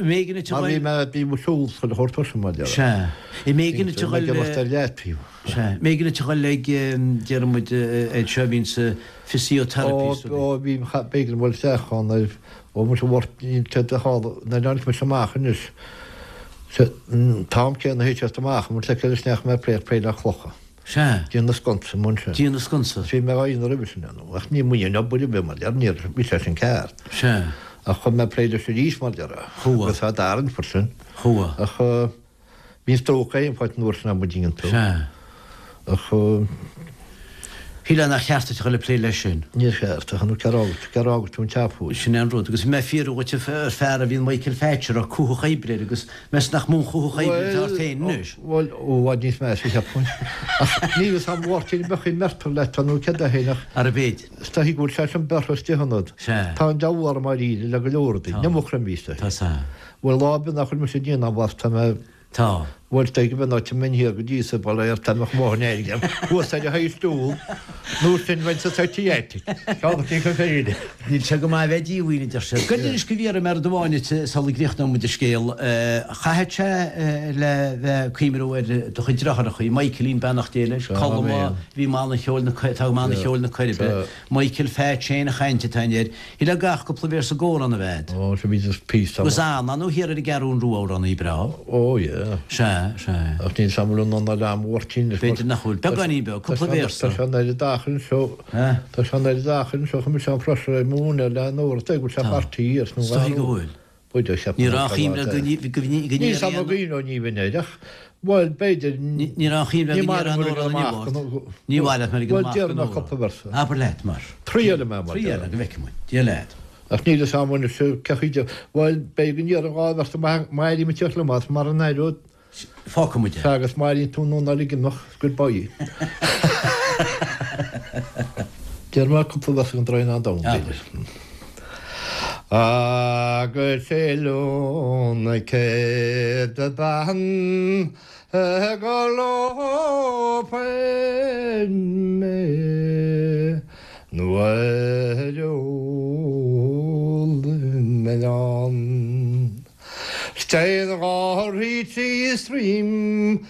[SPEAKER 2] M'éigean duit a
[SPEAKER 3] Mar bhí
[SPEAKER 2] ghoil.
[SPEAKER 3] mé, bhí mo siúl chuile shórt tuirseach, mar déarfá.
[SPEAKER 2] Sea. M'éigean duit a
[SPEAKER 3] Bhí mé
[SPEAKER 2] ghoil.
[SPEAKER 3] ag imeacht ar leataobh.
[SPEAKER 2] Sea. M'éigean duit a ghoil ag, déarfaidh muid, ag seo a bhíonn sa physiotherapy.
[SPEAKER 3] Ó, bhí, b'éigean dul isteach ann ar, ó muise bhurt, níl sé de shála, nuair a tháinig mise amach anois, an t-am céanna a théid siad amach, an bhfuil sé céard is neach mé ag plé, plé le clocha.
[SPEAKER 2] Sea.
[SPEAKER 3] Déanamh sconsa amuigh ansin.
[SPEAKER 2] Déanamh sconsa.
[SPEAKER 3] Bhí mé á dhéanamh roimhe sin, ach ní muidne an obair a bhí mar deir, níor, bhí sé sin ceart.
[SPEAKER 2] Sea.
[SPEAKER 3] Ach chuaigh mé ag plé leis arís mar déarfá.
[SPEAKER 2] Chuaigh.
[SPEAKER 3] Agus tá d'arraingt freisin.
[SPEAKER 2] Chuaigh.
[SPEAKER 3] Ach Bhí an stróc aon pháirt an uair sin am dtuigeann tú.
[SPEAKER 2] Sea.
[SPEAKER 3] Ach.
[SPEAKER 2] Shílfeá nach cheart duit a dhul ag plé leis sin.
[SPEAKER 3] Níor cheart, ach nó cér fhág, cér fhág tú an teach fuair.
[SPEAKER 2] Sin é an rud. Agus bhí mé ag fiafraí dhuit ar fear a bhíonn Michael Phatch a raibh cuthach oibre air agus meas nach mó an cuthach oibre atá ort féin anois.
[SPEAKER 3] Bhuel, ó, i bhfad níos measa, cheapfainn. Ach níl fhios a'm Mháirtín an mbeadh aon mbeirtear leat nó céard é féin ach.
[SPEAKER 2] Arbh fhéidir.
[SPEAKER 3] Is dóichí go bhfuil sé sin bearrtha istigh ionat.
[SPEAKER 2] Sea.
[SPEAKER 3] Tá an deabhal orm dáiríre le go leor rudaí.
[SPEAKER 2] Tá.
[SPEAKER 3] Ní mo chroimíos é.
[SPEAKER 2] Tá sea.
[SPEAKER 3] Bhuel, lá ar bith nach bhfuil mise ag déanamh as, tá mé.
[SPEAKER 2] Tá.
[SPEAKER 3] Bhuel, is dóigh go mbeidh áit a mbeinn thiar go dtí sa bhaile ar tá mbeadh máthair in éirinn thuas ar a thaobh stiúl, nó sin bheinn sa psychiatric. Ceann acu go féidir.
[SPEAKER 2] Níl sé go maith a bheith díomhaoin, a deir siad. Goid anois go bhfiafraí mé rud amháin duit sula gcríochnóidh muid an scéal. Chaithfeadh sé le bheith ag cuimhniú ar do chuid deartháireacha, Michaelín, beannacht Dé leis, Colm a bhí i mbanna cheoil na, atá i mbanna cheoil na Coiribe, Michael Phatch féin a chaint atá air. Shílfeá gach cúpla véarsa i gcomhrá a bheith.
[SPEAKER 3] Ó, sea, bhí just píosa.
[SPEAKER 2] Agus Anna, nó thiar ar an gCeathrún Rua amhránaí breá.
[SPEAKER 3] Ó, yeah.
[SPEAKER 2] Sea. Sea, sea.
[SPEAKER 3] Ach níl 's a'm an bhfuil an anáil a'm Mháirtín.
[SPEAKER 2] B'fhéidir nach bhfuil. Beagáinín beag, cúpla véarsa.
[SPEAKER 3] Tá sé an oiread achar anseo. Tá sé an oiread achar anseo chun mise an freastal ar mo mhúineadh le an uair atá go bhfuil sé beartaithe ar
[SPEAKER 2] Is dóigh go bhfuil.
[SPEAKER 3] B'fhéidir cheap
[SPEAKER 2] Ní raibh aon chuimhne go
[SPEAKER 3] Níl 's a'm an gcuimhneoidh ní bheinn air ach, bhuel, b'fhéidir.
[SPEAKER 2] Ní raibh aon chuimhne go ndéarfá an amhrán inniu ort. Ní mhaith leat mar ag
[SPEAKER 3] an amach go Bhuel, cúpla véarsa.
[SPEAKER 2] Abair leat mar.
[SPEAKER 3] Triailfidh mé mar.
[SPEAKER 2] Triail go bhfeicfidh muid. Dia leat.
[SPEAKER 3] Ach níl 'fhios a'm anois cé chaoi de, bhuel, b'fhéidir go ndéarfainn dhá bhéarsa má éirím ag tíocht liom as mar an éireoidh.
[SPEAKER 2] Fágfaidh muid é.
[SPEAKER 3] Sea, agus má éiríonn tú an anáil ag imeacht, goodbye. Déarfaidh mé cúpla véarsa den Draighneán Donn, b'fhéidir. Agus oileán na céad bean go lófainn mé nuair a ólfainn m'arán. 'S téann gáirí trí stroim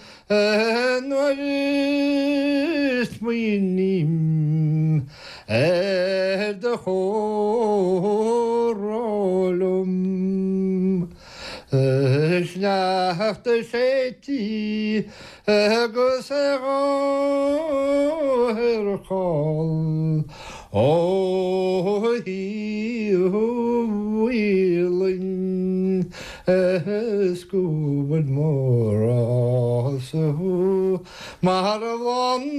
[SPEAKER 3] nuair a smaoiním ar do chomhrá liom. Sneachta séidte agus adharcáil ó thaobh Mhaoilinn is go bhfuil mo ghrá-sa thú mar bhláth an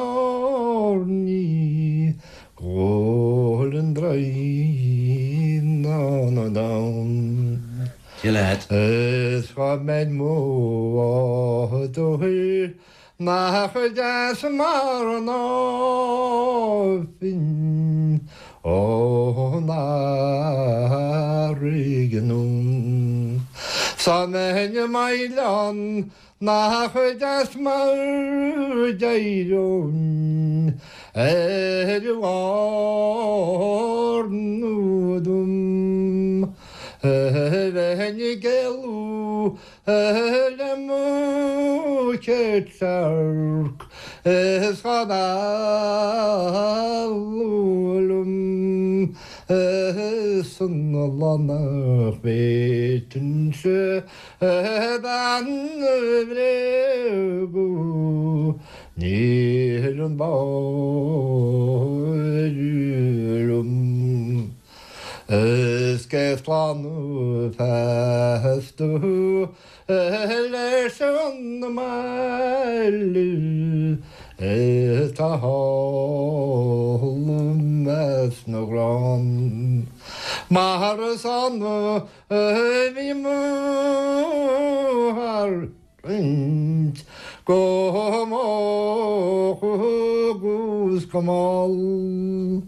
[SPEAKER 3] airní go bhfuil an Draighneán Donn.
[SPEAKER 2] Dia leat.
[SPEAKER 3] Is dhá mbeinn mo mháthair nach deas mar an áifinn ón fharraige anonn. 'S dá mbeinn i m'oileán Nach deas mar d'éireoinn ar bharr na dtom, bheinn ag éalú le mo chéad searc is dhá mhealladh liom is an lá nach bhféadfainnse Bean a bhréagadh níl an báire liom Is cé slánú feasta leis an mbaile atá thall i measc na gcrann Mar is ann Bhí mo tharraingt go moch agus go mall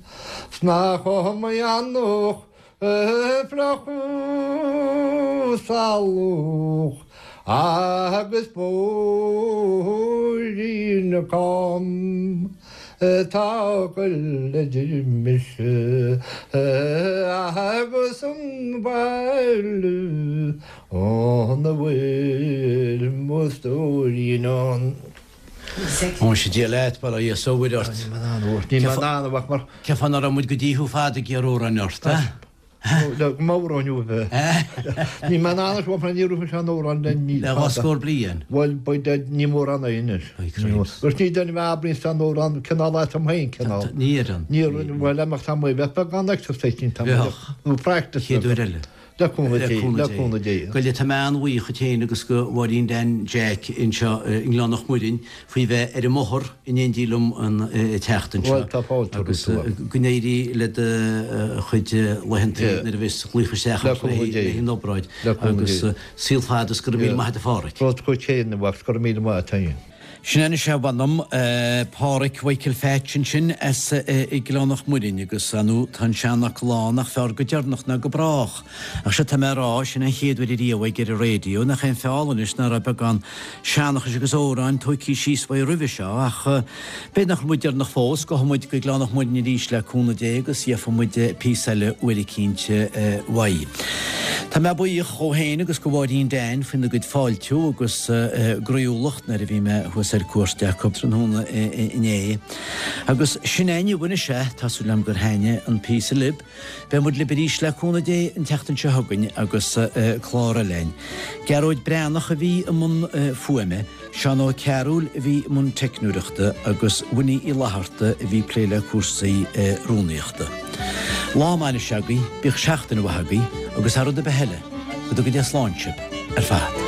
[SPEAKER 3] 's nach iomaí eanach fliuch salach agus bóithrín cam. Atá ag goil idir mise agus an baile ina bhfuil mo stóirín ann.
[SPEAKER 2] Muise Dia leat, bail ó Dhia 's ó Mhuire ort.
[SPEAKER 3] Níl mé in ann, níl mé in ann a mhac mar.
[SPEAKER 2] Cén fáth nach raibh muid go dtí thú fada ag iarraidh amhráin ort, a?
[SPEAKER 3] Le m'amhráin uaibh. Níl mé in ann anois mar ní raibh mise an amhrán le ní.
[SPEAKER 2] Le dhá scór bliain.
[SPEAKER 3] Bhuel, beidh ní mórán é anois. Agus ní duine mé a abraíonn san amhrán cineál as am féin cineál.
[SPEAKER 2] Ní oireann.
[SPEAKER 3] Ní oireann, bhuel, amach tá mé bheith beagán exercise ní tá mé.
[SPEAKER 2] Bheadh.
[SPEAKER 3] Nó practice.
[SPEAKER 2] Chéad uair eile.
[SPEAKER 3] Le cúnamh Dé, le cúnamh Dé.
[SPEAKER 2] Goile, tá mé an-bhuíoch dhuit féin agus go Mháirín Dan Jack anseo i nGleann Mhuirinn faoi bheith ar an mbóthar in éindí liom an teacht anseo.
[SPEAKER 3] Bhuel, tá fáilte
[SPEAKER 2] romhat. Agus go n-éirí le do chuid laethanta nuair a bheas glaoch isteach ort le haghaidh an obráid. Agus saol fada is go raibh míle maith agat a Pháraic.
[SPEAKER 3] Rud chugat féin, a mhac, 's go raibh míle maith agat féin.
[SPEAKER 2] Sin anois é mh'anam, Páraic Mhichael Phatch ansin as Gleann Mhuirinn agus ar ndóigh tá an seanfhocal ann nach fearr go deireanach ná go brách. Ach sea tá mé a rá, sin an chéad uair ariamh aige ar an raidió, nach é an feall anois ná raibh beagán seanchais agus amhráin tóigthe síos uaidh roimhe seo ach b'fhéidir nach bhfuil muid deireanach fós, gabhfaidh muid go Gleann Mhuirinn arís le cúnamh Dé agus gheobhaidh muid píosa eile uair eicínt uaidh. Tá mé buíoch dhó féin agus go Mháirín Dan faoina gcuid fáiltiú agus groíúlacht nuair a bhí mé thuas ar cuairt acu tráthnóna inné. Agus sin é inniu anois é, tá súil agam gur thaitnigh an píosa libh. Beidh muid libh arís le cúnamh Dé an tseachtain seo chugainn agus clár eile againn. Gearóid Breathnach a bhí i mbun fuaime, Seán Ó Cearúil a bhí i mbun teicneoireachta agus Winnie Uí Fhlatharta a bhí ag plé le cúrsaí rúnaíochta. Lá maith anois agaibh, bíodh seachtain mhaith agaibh agus thar rud ar bith eile, go dtuga Dia slán sibh ar fad.